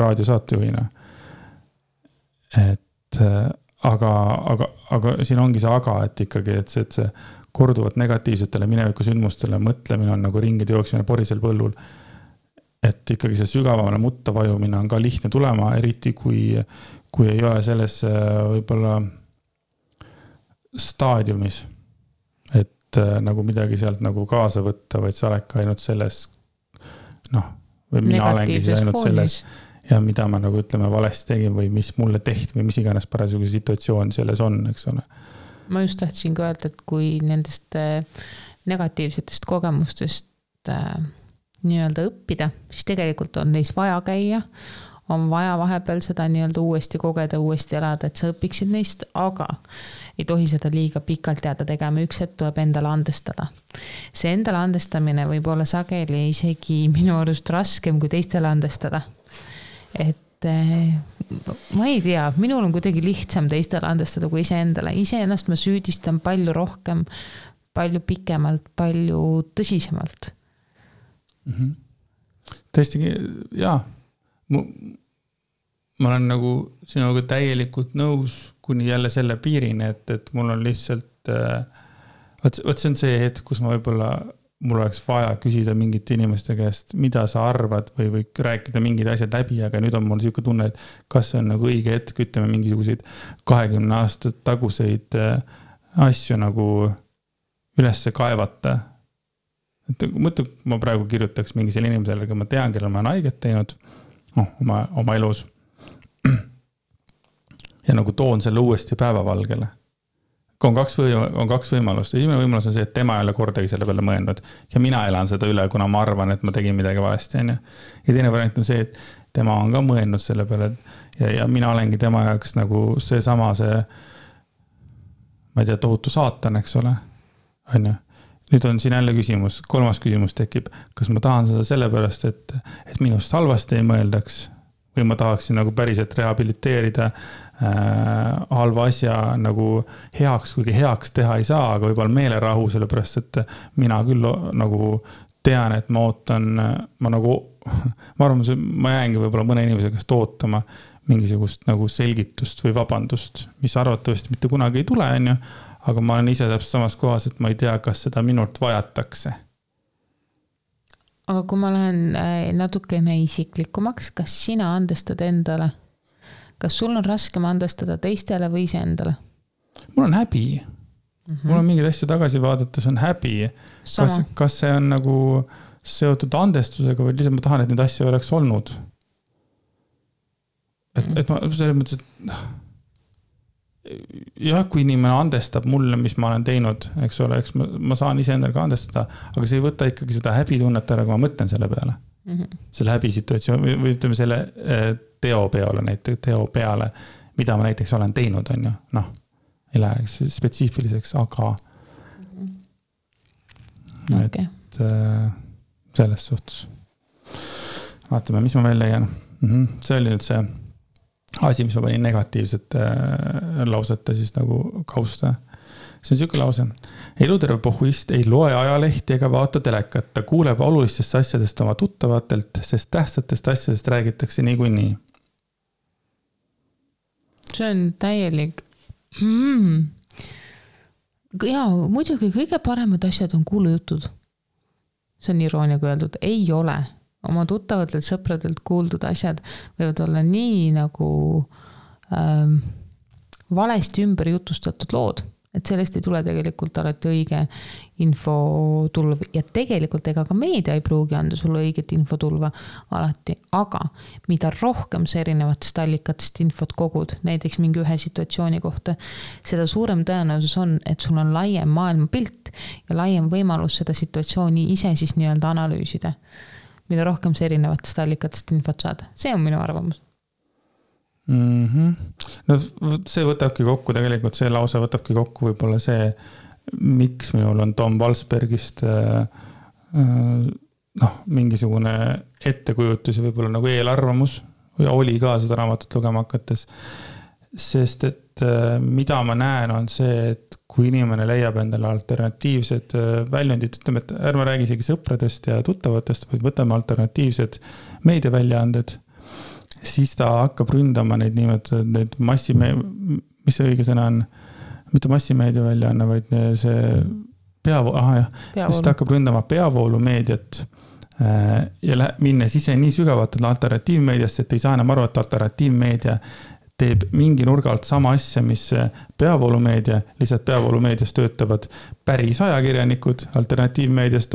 raadiosaatejuhina. Et aga siin ongi see aga, et ikkagi, et see korduvat negatiivsetele mineviku sündmustele mõtlemine on nagu ringide jooksmine porisel põllul. Et ikkagi see sügavamale mutta vajumine on ka lihtne tulema, eriti kui ei ole selles võib-olla staadiumis, et nagu midagi sealt nagu kaasa võtta, vaid sa oled ka ainult selles, või mina olengi ainult selles ja mida ma nagu ütleme valesti tegin või mis mulle tehti või mis iganes parasjagu situatsioon selles on, eks ole. Ma just tahtsin ka öelda, et kui nendest negatiivsetest kogemustest nii-öelda õppida, siis tegelikult on neis vaja käia, on vaja vahepeal seda nii-öelda uuesti kogeda, uuesti elada, et sa õpiksid neist, aga ei tohi seda liiga pikalt jääda tegema, üks hetk tuleb endale andestada. See endale andestamine võib olla sageli isegi minu arust raskem kui teistele andestada. Et ma ei tea, minul on kuidagi lihtsam teistele andestada kui iseendale. Iseennast ma süüdistan palju rohkem, palju pikemalt, palju tõsisemalt. Tõesti, jaa. Ma olen nagu sinuga täielikult nõus kuni jälle selle piirini, et mul on lihtsalt, võt see on see hetk, kus ma võib-olla mul oleks vaja küsida mingite inimeste käest, mida sa arvad või rääkida mingid asjad läbi, aga nüüd on mul selline tunne, et kas see on nagu õige hetk, ütleme mingisuguseid 20 aastat taguseid asju nagu ülesse kaevata. Mõtle, ma praegu kirjutaks mingisele inimesele, aga ma tean, kellel ma olen haiget teinud oma elus ja nagu toon selle uuesti päevavalgele. On kaks võimalust. Esimene võimalus on see, et tema ei ole kordagi selle peale mõelnud ja mina elan seda üle, kuna ma arvan, et ma tegin midagi valesti. Ja teine variant on see, et tema on ka mõelnud selle peale ja mina olengi tema jaoks nagu seesama ma ei tea, tohutu saatan, eks ole. Nüüd on siin jälle küsimus, 3. küsimus tekib, kas ma tahan seda sellepärast, et minust halvasti ei mõeldaks või ma tahaksin nagu päriselt rehabiliteerida halva asja nagu heaks, kuigi heaks teha ei saa, aga võib-olla meelerahu, sellepärast, et mina küll nagu tean, et ma ootan, ma arvan, ma jäängi võib-olla mõne inimese käest ootama mingisugust nagu selgitust või vabandust, mis arvatavasti mitte kunagi ei tule, aga ma olen ise täpselt samas kohas, et ma ei tea, kas seda minult vajatakse. Aga kui ma lähen natukene isiklikumaks, kas sina andestad endale? Kas sul on raskem andestada teistele või ise endale? Mul on häbi. Mul on mingeid asju tagasi vaadates on häbi. Kas see on nagu seotud andestusega või lihtsalt ma tahan, et neid asju oleks olnud? Et ma selles mõttes, et jah, kui inimene andestab mulle, mis ma olen teinud, eks ole, eks ma saan ise endale ka andestada, aga see ei võta ikkagi seda häbitunnet ära, kui ma mõtlen selle peale. Selle häbisituatsioon või ütleme selle teo peale, mida ma näiteks olen teinud, on ju. Ei lähe spetsiifiliseks, aga Okay. Et selles suhtes. Vaatame, mis ma veel leian. See oli nüüd see asi, mis ma panin negatiivsete lausete siis nagu kausta. See on siuke lause. Eluterve pohhuist ei loe ajalehti ega vaata telekat. Ta kuuleb olulistest asjadest oma tuttavatelt, sest tähtsatest asjadest räägitakse niikuinii. See on täielik. Ja muidugi kõige paremad asjad on kuulujutud. See on irooniaga öeldud. Ei ole. Oma tuttavatelt sõpradelt kuuldud asjad võivad olla nii nagu valesti ümber jutustatud lood, et sellest ei tule tegelikult alati õige infotulv ja tegelikult ega ka meedia ei pruugi anda sulle õiget infotulva alati, aga mida rohkem sa erinevatest allikatest infot kogud, näiteks mingi ühe situatsiooni kohta, seda suurem tõenäosus on, et sul on laiem maailmapilt ja laiem võimalus seda situatsiooni ise siis nii-öelda analüüsida. Mida rohkem see erinevatest allikatest infot saada. See on minu arvamus. No see võtabki kokku, tegelikult see lause võtabki kokku võib-olla see, miks minul on Tom Walsbergist mingisugune ettekujutus ja võib-olla nagu eelarvamus või oli ka seda raamatut lugema hakates. Sest et mida ma näen on see, et kui inimene leiab endale alternatiivsed väljundid, ütleme, et ärme räägi isegi sõpradest ja tuttavatest, vaid võtame alternatiivsed meediaväljaanded, siis ta hakkab ründama neid niimoodi, neid mis see õige sõna on, mitte massimeediaväljaanne, vaid see siis ta hakkab ründama peavoolumeediat ja minnes ise nii sügavalt alternatiivmeediasse, et ei saa enam aru, et alternatiivmeedia teeb mingi nurga alt sama asja, mis peavoolumeedia, lihtsalt peavoolumeedias töötavad päris ajakirjanikud, alternatiivmeedias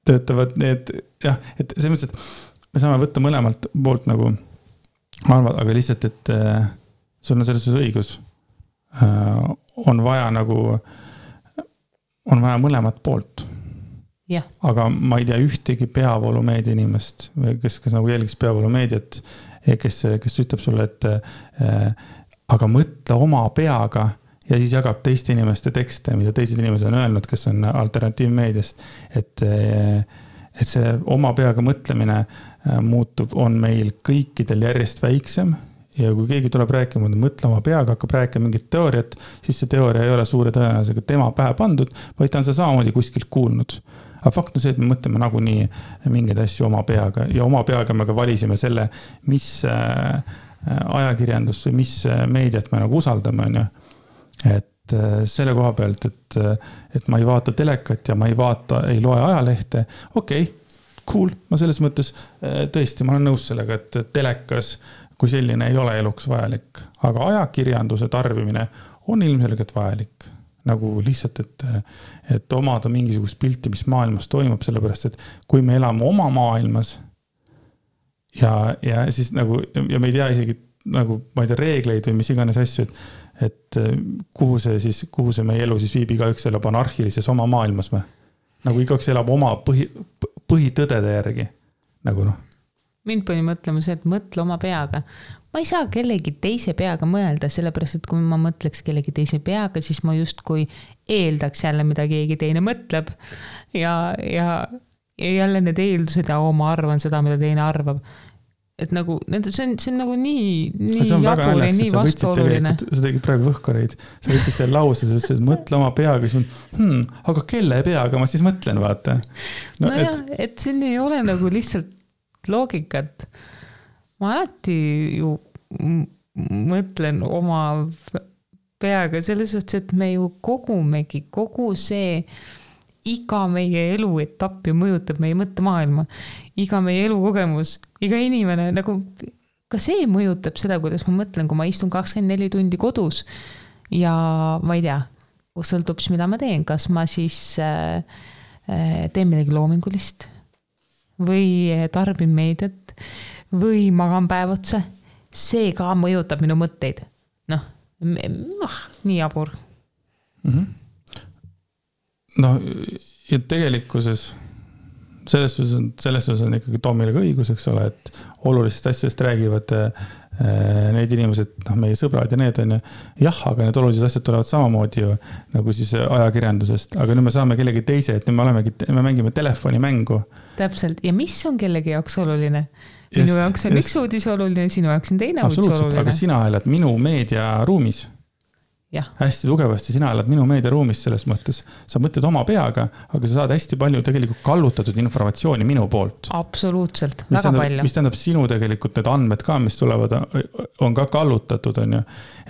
töötavad need, jah, et selles mõttes, et me saame võtta mõlemalt poolt nagu arvad, aga lihtsalt, et sul on selles õigus. On vaja mõlemat poolt. Ja. Aga ma ei tea ühtegi peavoolumeedia inimest, kes nagu jälgiks peavoolumeediat, kes ütleb sulle, et aga mõtle oma peaga ja siis jagab teiste inimeste tekste, mida teised inimesed on öelnud, kes on alternatiivmeediast, et see oma peaga mõtlemine on meil kõikidel järjest väiksem ja kui keegi tuleb rääkima, mõtle oma peaga, hakkab rääkima mingit teooriat, siis see teooria ei ole suure tõenäosusega tema pähe pandud, vaid ta on see samamoodi kuskilt kuulnud. Aga fakt on see, et me mõtleme nagunii mingeid asju oma peaga ja oma peaga me ka valisime selle, mis ajakirjandus või mis meediat me nagu usaldame. On ju. Et selle koha pealt, et ma ei vaata telekat ja ma ei loe ajalehte. Okei, cool, ma selles mõttes tõesti, ma olen nõus sellega, et telekas kui selline ei ole eluks vajalik, aga ajakirjanduse tarbimine on ilmselgelt vajalik. Nagu lihtsalt, et omada mingisugust pilti, mis maailmas toimub, sellepärast, et kui me elame oma maailmas ja siis nagu, ja me ei tea isegi nagu, ma ei tea, reegleid või mis iganes asju, et kuhu see meie elu siis viib, igaüks elab anarhilises oma maailmas või? Nagu igaüks elab oma põhitõdede järgi, nagu noh. Mind pani mõtlema see, et mõtle oma peaga. Ma ei saa kellegi teise peaga mõelda, sellepärast, et kui ma mõtleks kellegi teise peaga, siis ma just kui eeldaks jälle, mida keegi teine mõtleb ja jälle need eeldused ja ma arvan seda, mida teine arvab. Et nagu, see on nagu nii jabur ja nii vastuoluline. Sa tegid praegu võhkareid, sa võtsid selle lause, sa ütlesid, et mõtle oma peaga, siis aga kelle peaga ma siis mõtlen, vaata. No et siin ei ole nagu lihtsalt loogikat. Ma alati ju mõtlen oma peaga selles suhtes, et me ju kogumegi kogu see iga meie elu etapp ju mõjutab meie mõttemaailma, iga meie elukogemus, iga inimene, nagu ka see mõjutab seda, kuidas ma mõtlen, kui ma istun 24 tundi kodus ja ma ei tea, sõltub mida ma teen, kas ma siis teen midagi loomingulist või tarbin meediat või magan päev otsa, see ka mõjutab minu mõtteid. Nii jabur. No ja tegelikkuses selles on ikkagi Tomile ka õigus, eks ole, et olulistest asjadest räägivad need inimesed, meie sõbrad ja need on jah, aga need olulised asjad tulevad samamoodi ju nagu siis ajakirjandusest, aga nüüd me saame kellegi teise, et nüüd me mängime telefonimängu. Täpselt, ja mis on kellegi jaoks oluline? Minu jaoks on üks uudis oluline, sinu jaoks on teine uudis oluline. Aga sina elad minu meediaruumis. Ja. Hästi tugevasti, sina elad minu meediaruumis selles mõttes. Sa mõtled oma peaga, aga sa saad hästi palju tegelikult kallutatud informatsiooni minu poolt. Absoluutselt, väga palju. Mis tähendab sinu tegelikult need andmed ka, mis tulevad, on ka kallutatud, on ju.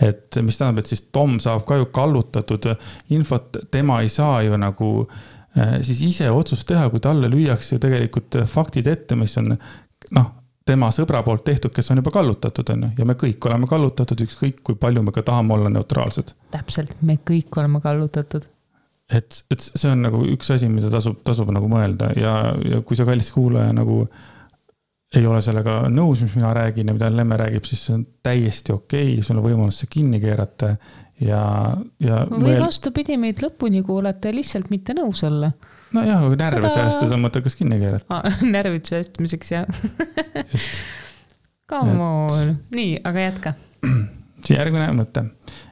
Et mis tähendab, et siis Tom saab ka ju kallutatud infot, tema ei saa ju nagu siis ise otsust teha, kui talle lüüakse ju tegelikult faktid ette, mis on tema sõbra poolt tehtud, kes on juba kallutatud, on ju. Ja me kõik oleme kallutatud, ükskõik kui palju me ka tahame olla neutraalsed. Täpselt, me kõik oleme kallutatud. Et see on nagu üks asi, mida tasub nagu mõelda ja kui sa kallis kuulaja nagu ei ole sellega nõus, mis mina räägin ja mida Lemme räägib, siis see on täiesti okei, sul on võimalus see kinni keerata või vastupidi meid lõpuni kuulata ja lihtsalt mitte nõus olla. No jah, kui närve säästes on mõte, kas kinni keerata. Närvid säästmiseks, jah. Come on. Nii, aga jätka. Siin järgmine mõte.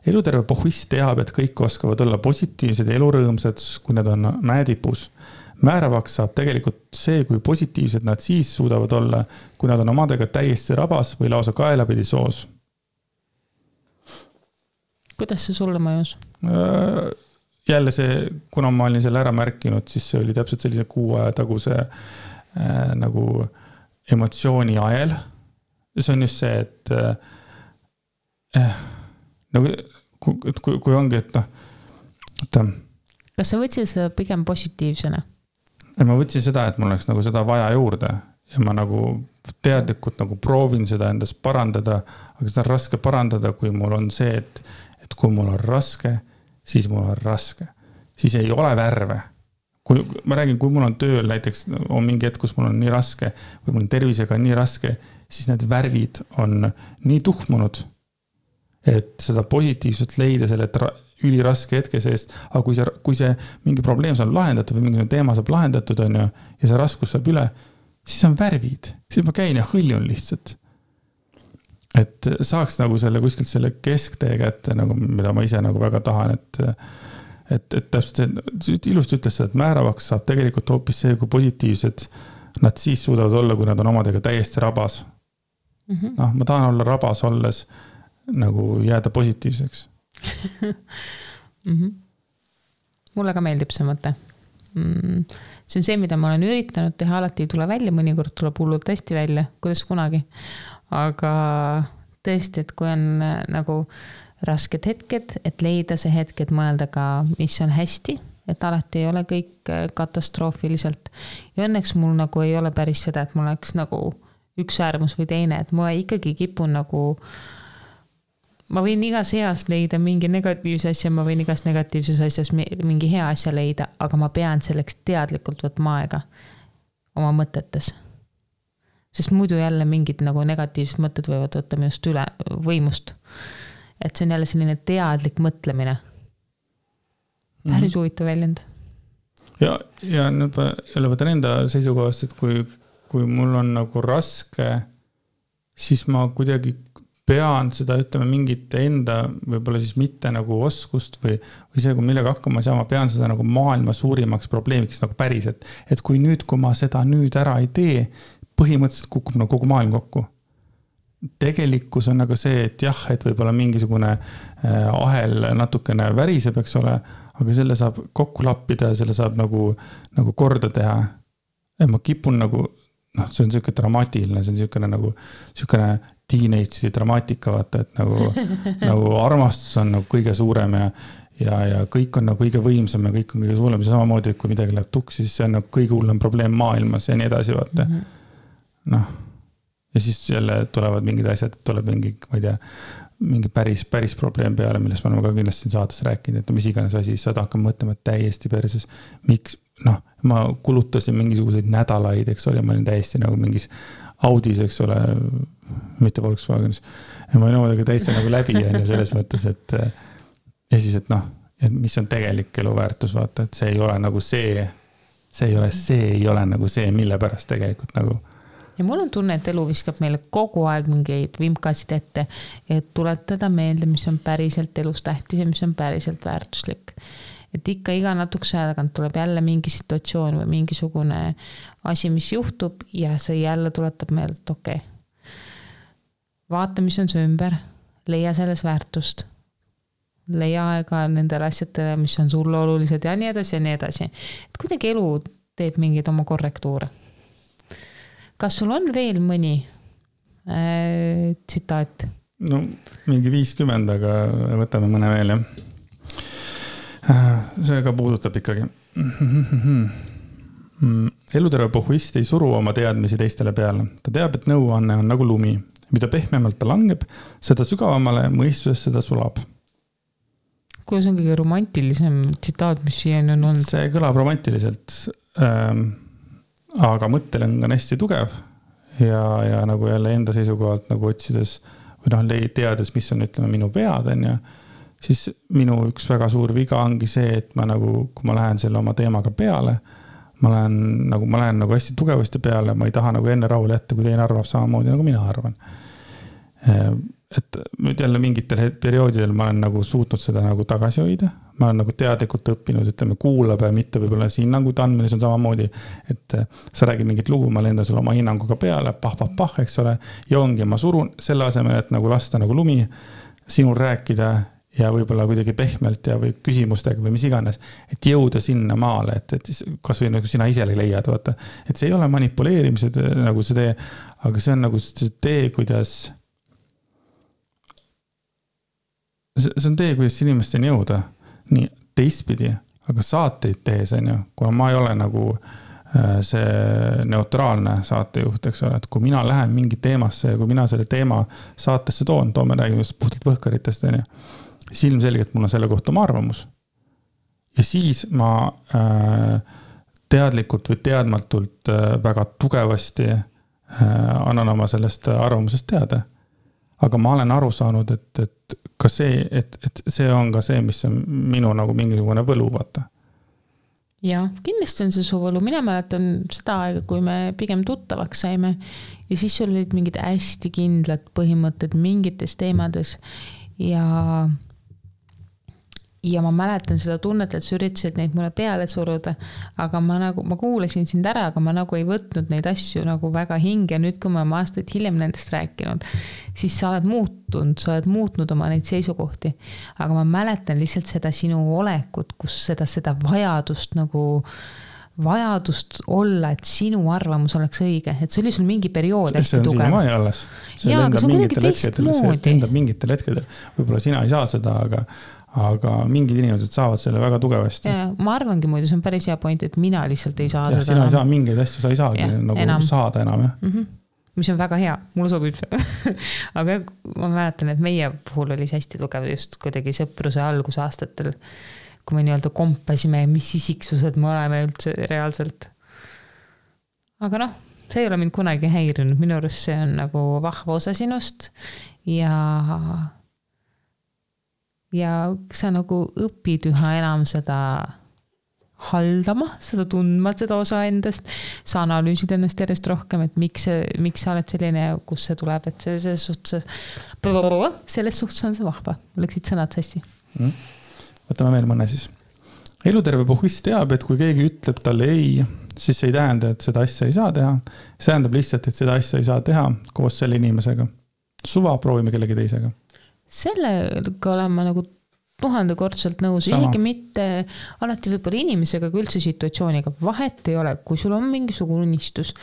Eluterve pohvist teab, et kõik oskavad olla positiivsed ja elurõõmsad, kui nad on mäetipus. Määravaks saab tegelikult see, kui positiivsed nad siis suudavad olla, kui nad on omadega täiesti rabas või lausa kaelapidi soos. Kuidas see sulle mõjus? Jälle see, kuna ma olin selle ära märkinud, siis see oli täpselt sellise 6 aja taguse nagu emotsiooni ajel. See on just see, et nagu, kui ongi, et kas sa võtsid seda pigem positiivsena? Ma võtsin seda, et mul oleks nagu seda vaja juurde ja ma nagu teadlikult nagu proovin seda endas parandada, aga seda on raske parandada, kui mul on see, et kui mul on raske, siis mul on raske. Siis ei ole värve. Ma räägin, kui mul on tööl näiteks on mingi hetk, kus mul on nii raske või mul on tervisega nii raske, siis need värvid on nii tuhmunud, et seda positiivselt leida selle üliraske hetke seest. Aga kui see mingi probleem saab lahendatud või mingi teema saab lahendatud on ju, ja see raskus saab üle, siis on värvid. Siis ma käin ja hõljun lihtsalt. Et saaks nagu selle kuskilt selle kesktee kätte, nagu, mida ma ise nagu väga tahan, et täpselt see ilusti ütles seda, et määravaks saab tegelikult hoopis see, kui positiivsed nad siis suudavad olla, kui nad on omadega täiesti rabas. Ma tahan olla rabas olles nagu jääda positiivseks. Mulle ka meeldib see mõte. See on see, mida ma olen üritanud teha, alati ei tule välja, mõnikord tuleb hullult hästi välja, kuidas kunagi. Aga tõesti, et kui on nagu rasked hetked, et leida see hetk, et mõelda ka, mis on hästi, et alati ei ole kõik katastroofiliselt. Ja õnneks mul nagu ei ole päris seda, et mul oleks nagu üks äärmus või teine, et ma ikkagi kipun nagu ma võin igas heas leida mingi negatiivse asja, ma võin igas negatiivses asjas mingi hea asja leida, aga ma pean selleks teadlikult võtma aega oma mõtetes. Sest muidu jälle mingid nagu negatiivsed mõtted võivad võtta minust üle võimust. Et see on jälle selline teadlik mõtlemine. Päris huvitav väljend. Ja nüüd jälle võtan enda seisukohast, et kui mul on nagu raske, siis ma kuidagi pean seda, ütleme, mingit enda võib-olla siis mitte nagu oskust või see, kui millega hakkama saa, ma pean seda nagu maailma suurimaks probleemiks nagu päris, et kui ma seda nüüd ära ei tee, põhimõtteliselt kukub nagu kogu maailm kokku. Tegelikkus on nagu see, et jah, et võib-olla mingisugune ahel natukene väriseb, eks ole, aga selle saab kokku lappida ja selle saab nagu korda teha. Ja ma kipun nagu, see on selline dramaatiline, see on selline teenage'i dramaatika, vaata, et nagu armastus on nagu kõige suurem ja kõik on nagu kõige võimsam ja kõik on kõige suurem. Samamoodi, et kui midagi läheb tuksi, siis see on nagu kõige hullem probleem maailmas ja nii edasi, vaata. Ja siis jälle tulevad mingid asjad, et tuleb mingi, ma ei tea, mingi päris probleem peale, millest me oleme ka kindlasti saates rääkinud, et mis iganes asi, siis saad hakkama mõtlema täiesti perses. Miks, ma kulutasin mingisuguseid nädalaid, eks ole, ma olin täiesti nagu mingis Audis, eks ole, mitte Volkswagenis. Ja ma olin omadega täitsa nagu läbi ja selles mõttes, et ja siis, et mis on tegelik eluväärtus, vaata, et see ei ole nagu see ei ole nagu see, mille pärast tegelikult nagu. ja mul on tunne, et elu viskab meile kogu aeg mingeid vimkasid ette, et tuletada meelde, mis on päriselt elus tähtis ja mis on päriselt väärtuslik. Et ikka iga natukese aja tagant tuleb jälle mingi situatsioon või mingisugune asi, mis juhtub ja see jälle tuletab meelde, et okei. Vaata, mis on see ümber, leia selles väärtust, leia aega nendele asjadele, mis on sulle olulised ja nii edasi ja nii edasi. Et kuidagi elu teeb mingeid oma korrektuure. Kas sul on veel mõni tsitaat? No mingi 50, aga võtame mõne veel, jah. See ka puudutab ikkagi. Eluterve pohhuist ei suru oma teadmisi teistele peale. Ta teab, et nõuanne on nagu lumi. Mida pehmemalt ta langeb, seda sügavamale mõistuses seda sulab. Kuidas on kõige romantilisem tsitaat, mis siiani on olnud? See kõlab romantiliselt, aga mõttel on ka hästi tugev ja nagu jälle enda seisukohalt nagu otsides või teades, mis on, ütleme, minu vead on ja siis minu üks väga suur viga ongi see, et ma nagu, kui ma lähen selle oma teemaga peale, ma lähen nagu hästi tugevasti peale, ma ei taha nagu enne rahule jätta, kui teine arvab samamoodi, nagu mina arvan. Et nüüd jälle mingitel perioodidel ma olen nagu suutnud seda nagu tagasi hoida. Ma olen nagu teadlikult õppinud, ütleme, kuulab ja mitte võib-olla see hinnangud andmine, see on samamoodi, et sa räägid mingit lugu, ma lendan sulle oma hinnanguga peale, pah, eks ole, ja ongi, ma surun selle asemel, et nagu lasta nagu lumi sinul rääkida ja võib-olla kuidagi pehmelt ja või küsimustega või mis iganes, et jõuda sinna maale, et kas või nagu sina ise leiad, vaata, et see ei ole manipuleerimised nagu see tee, aga see on nagu see tee, kuidas inimesteni jõuda nii teistpidi, aga saateid tehes on ju, kuna ma ei ole nagu see neutraalne saatejuht, eks ole, et kui mina lähen mingi teemasse ja kui mina selle teema saatesse toome räägime puhtalt võhkaritest, on ju, silmselgelt mul on selle kohta oma arvamus. Ja siis ma teadlikult või teadmatult väga tugevasti annan oma sellest arvamusest teada. Aga ma olen aru saanud, et ka see, et see on ka see, mis on minu nagu mingisugune võlu, vaata. Ja, kindlasti on see su võlu. Mina mäletan seda aega, kui me pigem tuttavaks saime ja siis sul olid mingid hästi kindlad põhimõtted mingites teemades ja ma mäletan seda tunnet, et sa üritasid neid mulle peale suruda, aga ma kuulasin sind ära, aga ma nagu ei võtnud neid asju nagu väga hinge. Nüüd, kui ma aastaid hiljem nendest rääkinud, siis sa oled muutnud oma neid seisukohti. Aga ma mäletan lihtsalt seda sinu olekut, kus seda vajadust olla, et sinu arvamus oleks õige. Et see oli sul mingi periood hästi tugev. See on siiamaani alles. Jaa, aga see on kuidagi teistmoodi. See lendab mingitel hetkedel. Võib-olla sina ei saa seda, aga mingid inimesed saavad selle väga tugevasti. Ja, ma arvangi muidu, see on päris hea point, et mina lihtsalt ei saa seda. Sina ei saa mingeid asju, sa ei saagi nagu saada enam. Mis on väga hea, mulle sobib see. Aga ma mäletan, et meie puhul oli see hästi tugev just kuidagi sõpruse algusaastatel, kui me nii-öelda kompasime, mis isiksused me oleme üldse reaalselt. Aga see ei ole mind kunagi häirinud. Minu arust see on nagu vahva osa sinust ja sa nagu õpid üha enam seda haldama, seda tundma, seda osa endast, sa analüüsid ennast järjest rohkem, et miks sa oled selline, kus see tuleb, et selles suhtes on see vahva. Läksid sõnad hästi. Võtame veel mõne siis. Eluterve pohhuist teab, et kui keegi ütleb talle ei, siis ei tähenda, et seda asja ei saa teha. See tähendab lihtsalt, et seda asja ei saa teha koos selle inimesega. Suva proovime kellegi teisega. Sellega olen ma nagu 1000-kordselt nõus, isegi mitte alati võib-olla inimesega, kui üldse situatsiooniga. Vahet ei ole, kui sul on mingisugune unistus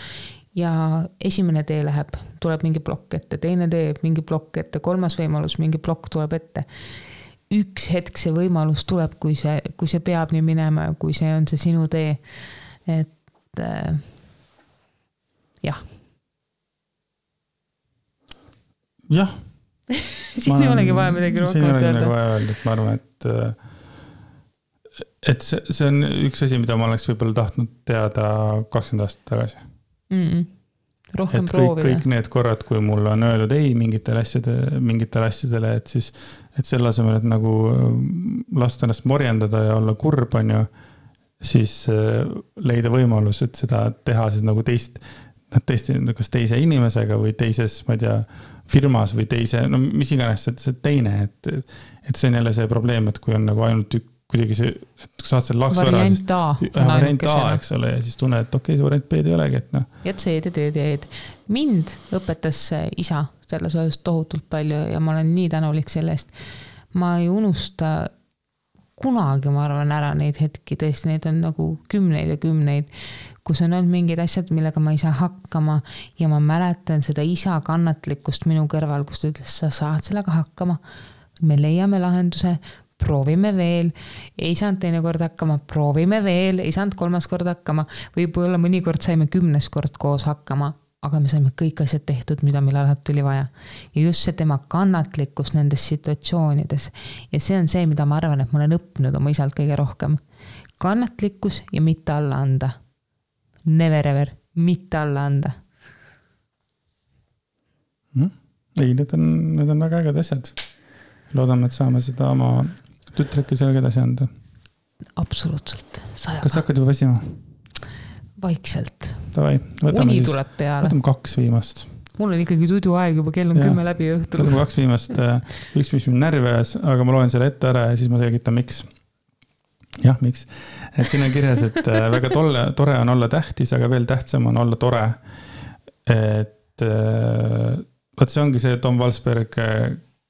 ja esimene tee läheb, tuleb mingi plokk ette, teine tee mingi plokk ette, kolmas võimalus, mingi plokk tuleb ette. Üks hetk see võimalus tuleb, kui see peab nii minema, kui see on see sinu tee. Et jah. Jah. Siin ei olegi vaja midagi rohkem öelda. Ma arvan, et see on üks asi, mida ma oleks võib-olla tahtnud teada 20 aastat tagasi. Rohkem proovida. Kõik need korrad, kui mul on öeldud ei mingitele asjadele, et siis selle asemel, et nagu lasta ennast morjendada ja olla kurb, on ju, siis leida võimalus, et seda teha siis nagu tõesti kas teise inimesega või teises, ma ei tea, firmas või teise, no mis iganes see teine, et see on jälle see probleem, et kui on nagu ainult kuidagi see, et saad selle laksu ära, variant A, eks ole, ja siis tunned, et okei, see variant B ei olegi, et noh. Et see eed. Mind õpetas isa selles osas tohutult palju ja ma olen nii tänulik selle eest. Ma ei unusta kunagi, ma arvan, ära neid hetki, tõesti, neid on nagu kümneid ja kümneid, kus on olnud mingid asjad, millega ma ei saa hakkama ja ma mäletan seda isa kannatlikkust minu kõrval, kus ta ütles, sa saad sellega hakkama, me leiame lahenduse, proovime veel, ei saanud teine kord hakkama, proovime veel, ei saanud kolmas kord hakkama, võib-olla mõnikord saime 10 kord koos hakkama, aga me saime kõik asjad tehtud, mida meil alati tuli vaja. Ja just see tema kannatlikkus nendes situatsioonides. Ja see on see, mida ma arvan, et ma olen õppinud oma isalt kõige rohkem. Kannatlikkus ja mitte alla anda. Never ever, mitte alla anda. Ei, need on väga äged asjad. Loodame, et saame seda oma tütreki sellega edasi anda. Absoluutselt. Kas hakkad juba väsima? Vaikselt. Tavai, uni tuleb peale. Võtame 2 viimast. Mul on ikkagi tudu aeg juba, kell on 10 läbi õhtul. Võtame 2 viimast. Üks, mis mind närvi ajas, aga ma loen selle ette ära ja siis ma selgitan, miks. Jah, miks? Et siin on kirjas, et väga tore on olla tähtis, aga veel tähtsam on olla tore. Et võt see ongi see Tom Walsberg,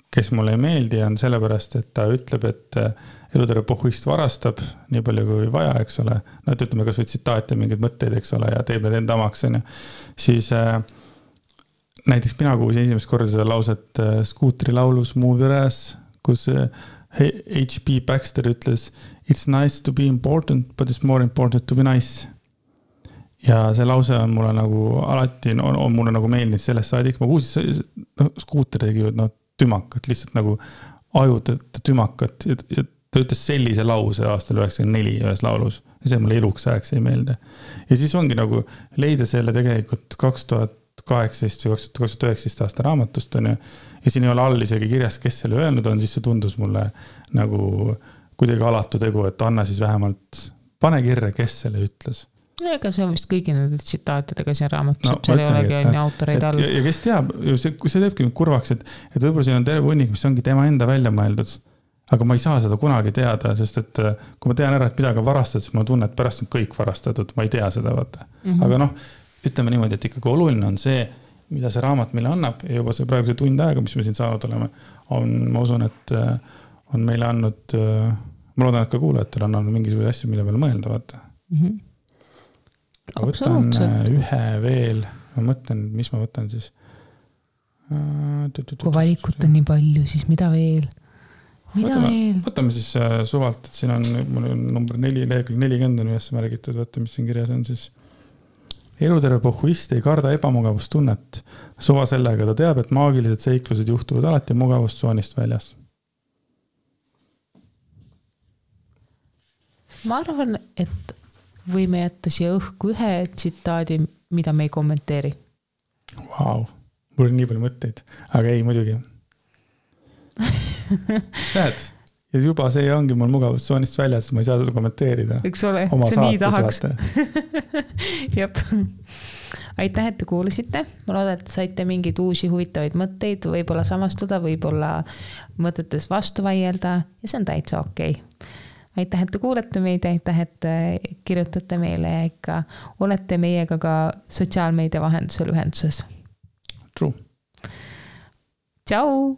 kes mulle ei meeldi, on sellepärast, et ta ütleb, et eluterve pohhuist varastab nii palju kui vaja, eks ole. No, et ütleme, kas või tsitaat ja mingid mõtteid, eks ole, ja teeb need enda omaks. Siis näiteks mina kuulsin esimest korda seda lauset Scooteri laulus Move Your Ass, kus H.P. Baxter ütles It's nice to be important, but it's more important to be nice. Ja see lause on mulle nagu alati, on mulle nagu meeldinud sellest saadik. Ma kuulsin, Scooter tegi tümakat, lihtsalt nagu ajud tümakat. Ja ta ütles sellise lause aastal 94 ühes laulus. Ja see mulle eluks ajaks ei meelde. Ja siis ongi nagu leida selle tegelikult 2018 või 2019 aasta raamatust on ja siin ei ole all isegi kirjas, kes selle öelnud on, siis see tundus mulle nagu kuidagi alatu tegu, et anna siis vähemalt pane kirja, kes selle ütles. Ega see on vist kõigi nende tsitaatidega siin raamatus, et seal ei olegi on autoreid all. Ja kes teab, kui see teebki nüüd kurvaks, et võib-olla siin on terve hunnik, mis ongi tema enda välja mõeldud, aga ma ei saa seda kunagi teada, sest et kui ma tean ära, et midagi on varastatud, siis ma tunnen, et pärast on kõik varastatud, ma ei tea seda, vaata. Aga noh, ütleme niimoodi, et ikkagi oluline on see, mida see raamat meile annab ja juba see praegu see tund aega, mis me siin saanud oleme, ma usun, et on meile andnud, ma loodan, et ka kuulajatel on andnud mingisuguse asju, mille peale mõelda, vaata. Ma võtan ühe veel, ma mõtlen, mis ma võtan siis. Kui valikut on nii palju, siis mida veel? Võtame siis suvalt, et siin on number 4, lehekülg 40 on ühes märgitud, võtta, mis siin kirjas on siis. Eluterve pohhuist ei karda ebamugavustunnet. Suva sellega ta teab, et maagilised seiklused juhtuvad alati mugavustsoonist väljas. Ma arvan, et võime jätta siia õhku ühe tsitaadi, mida me ei kommenteeri. Vau, mul on nii palju mõtteid, aga ei muidugi. Näed, ja juba see ongi mul mugavustsoonist väljas, ma ei saa seda kommenteerida. Eks ole, see nii tahaks. Jep. Aitäh, et te kuulasite. Ma loodan, et saite mingeid uusi huvitavaid mõtteid, võib-olla samastuda, võib-olla mõtetes vastu vaielda ja see on täitsa okei. Aitäh, et te kuulete meid, aitäh, et kirjutate meile ja ikka olete meiega ka sotsiaalmeedia vahendusel ühenduses. True. Tšau!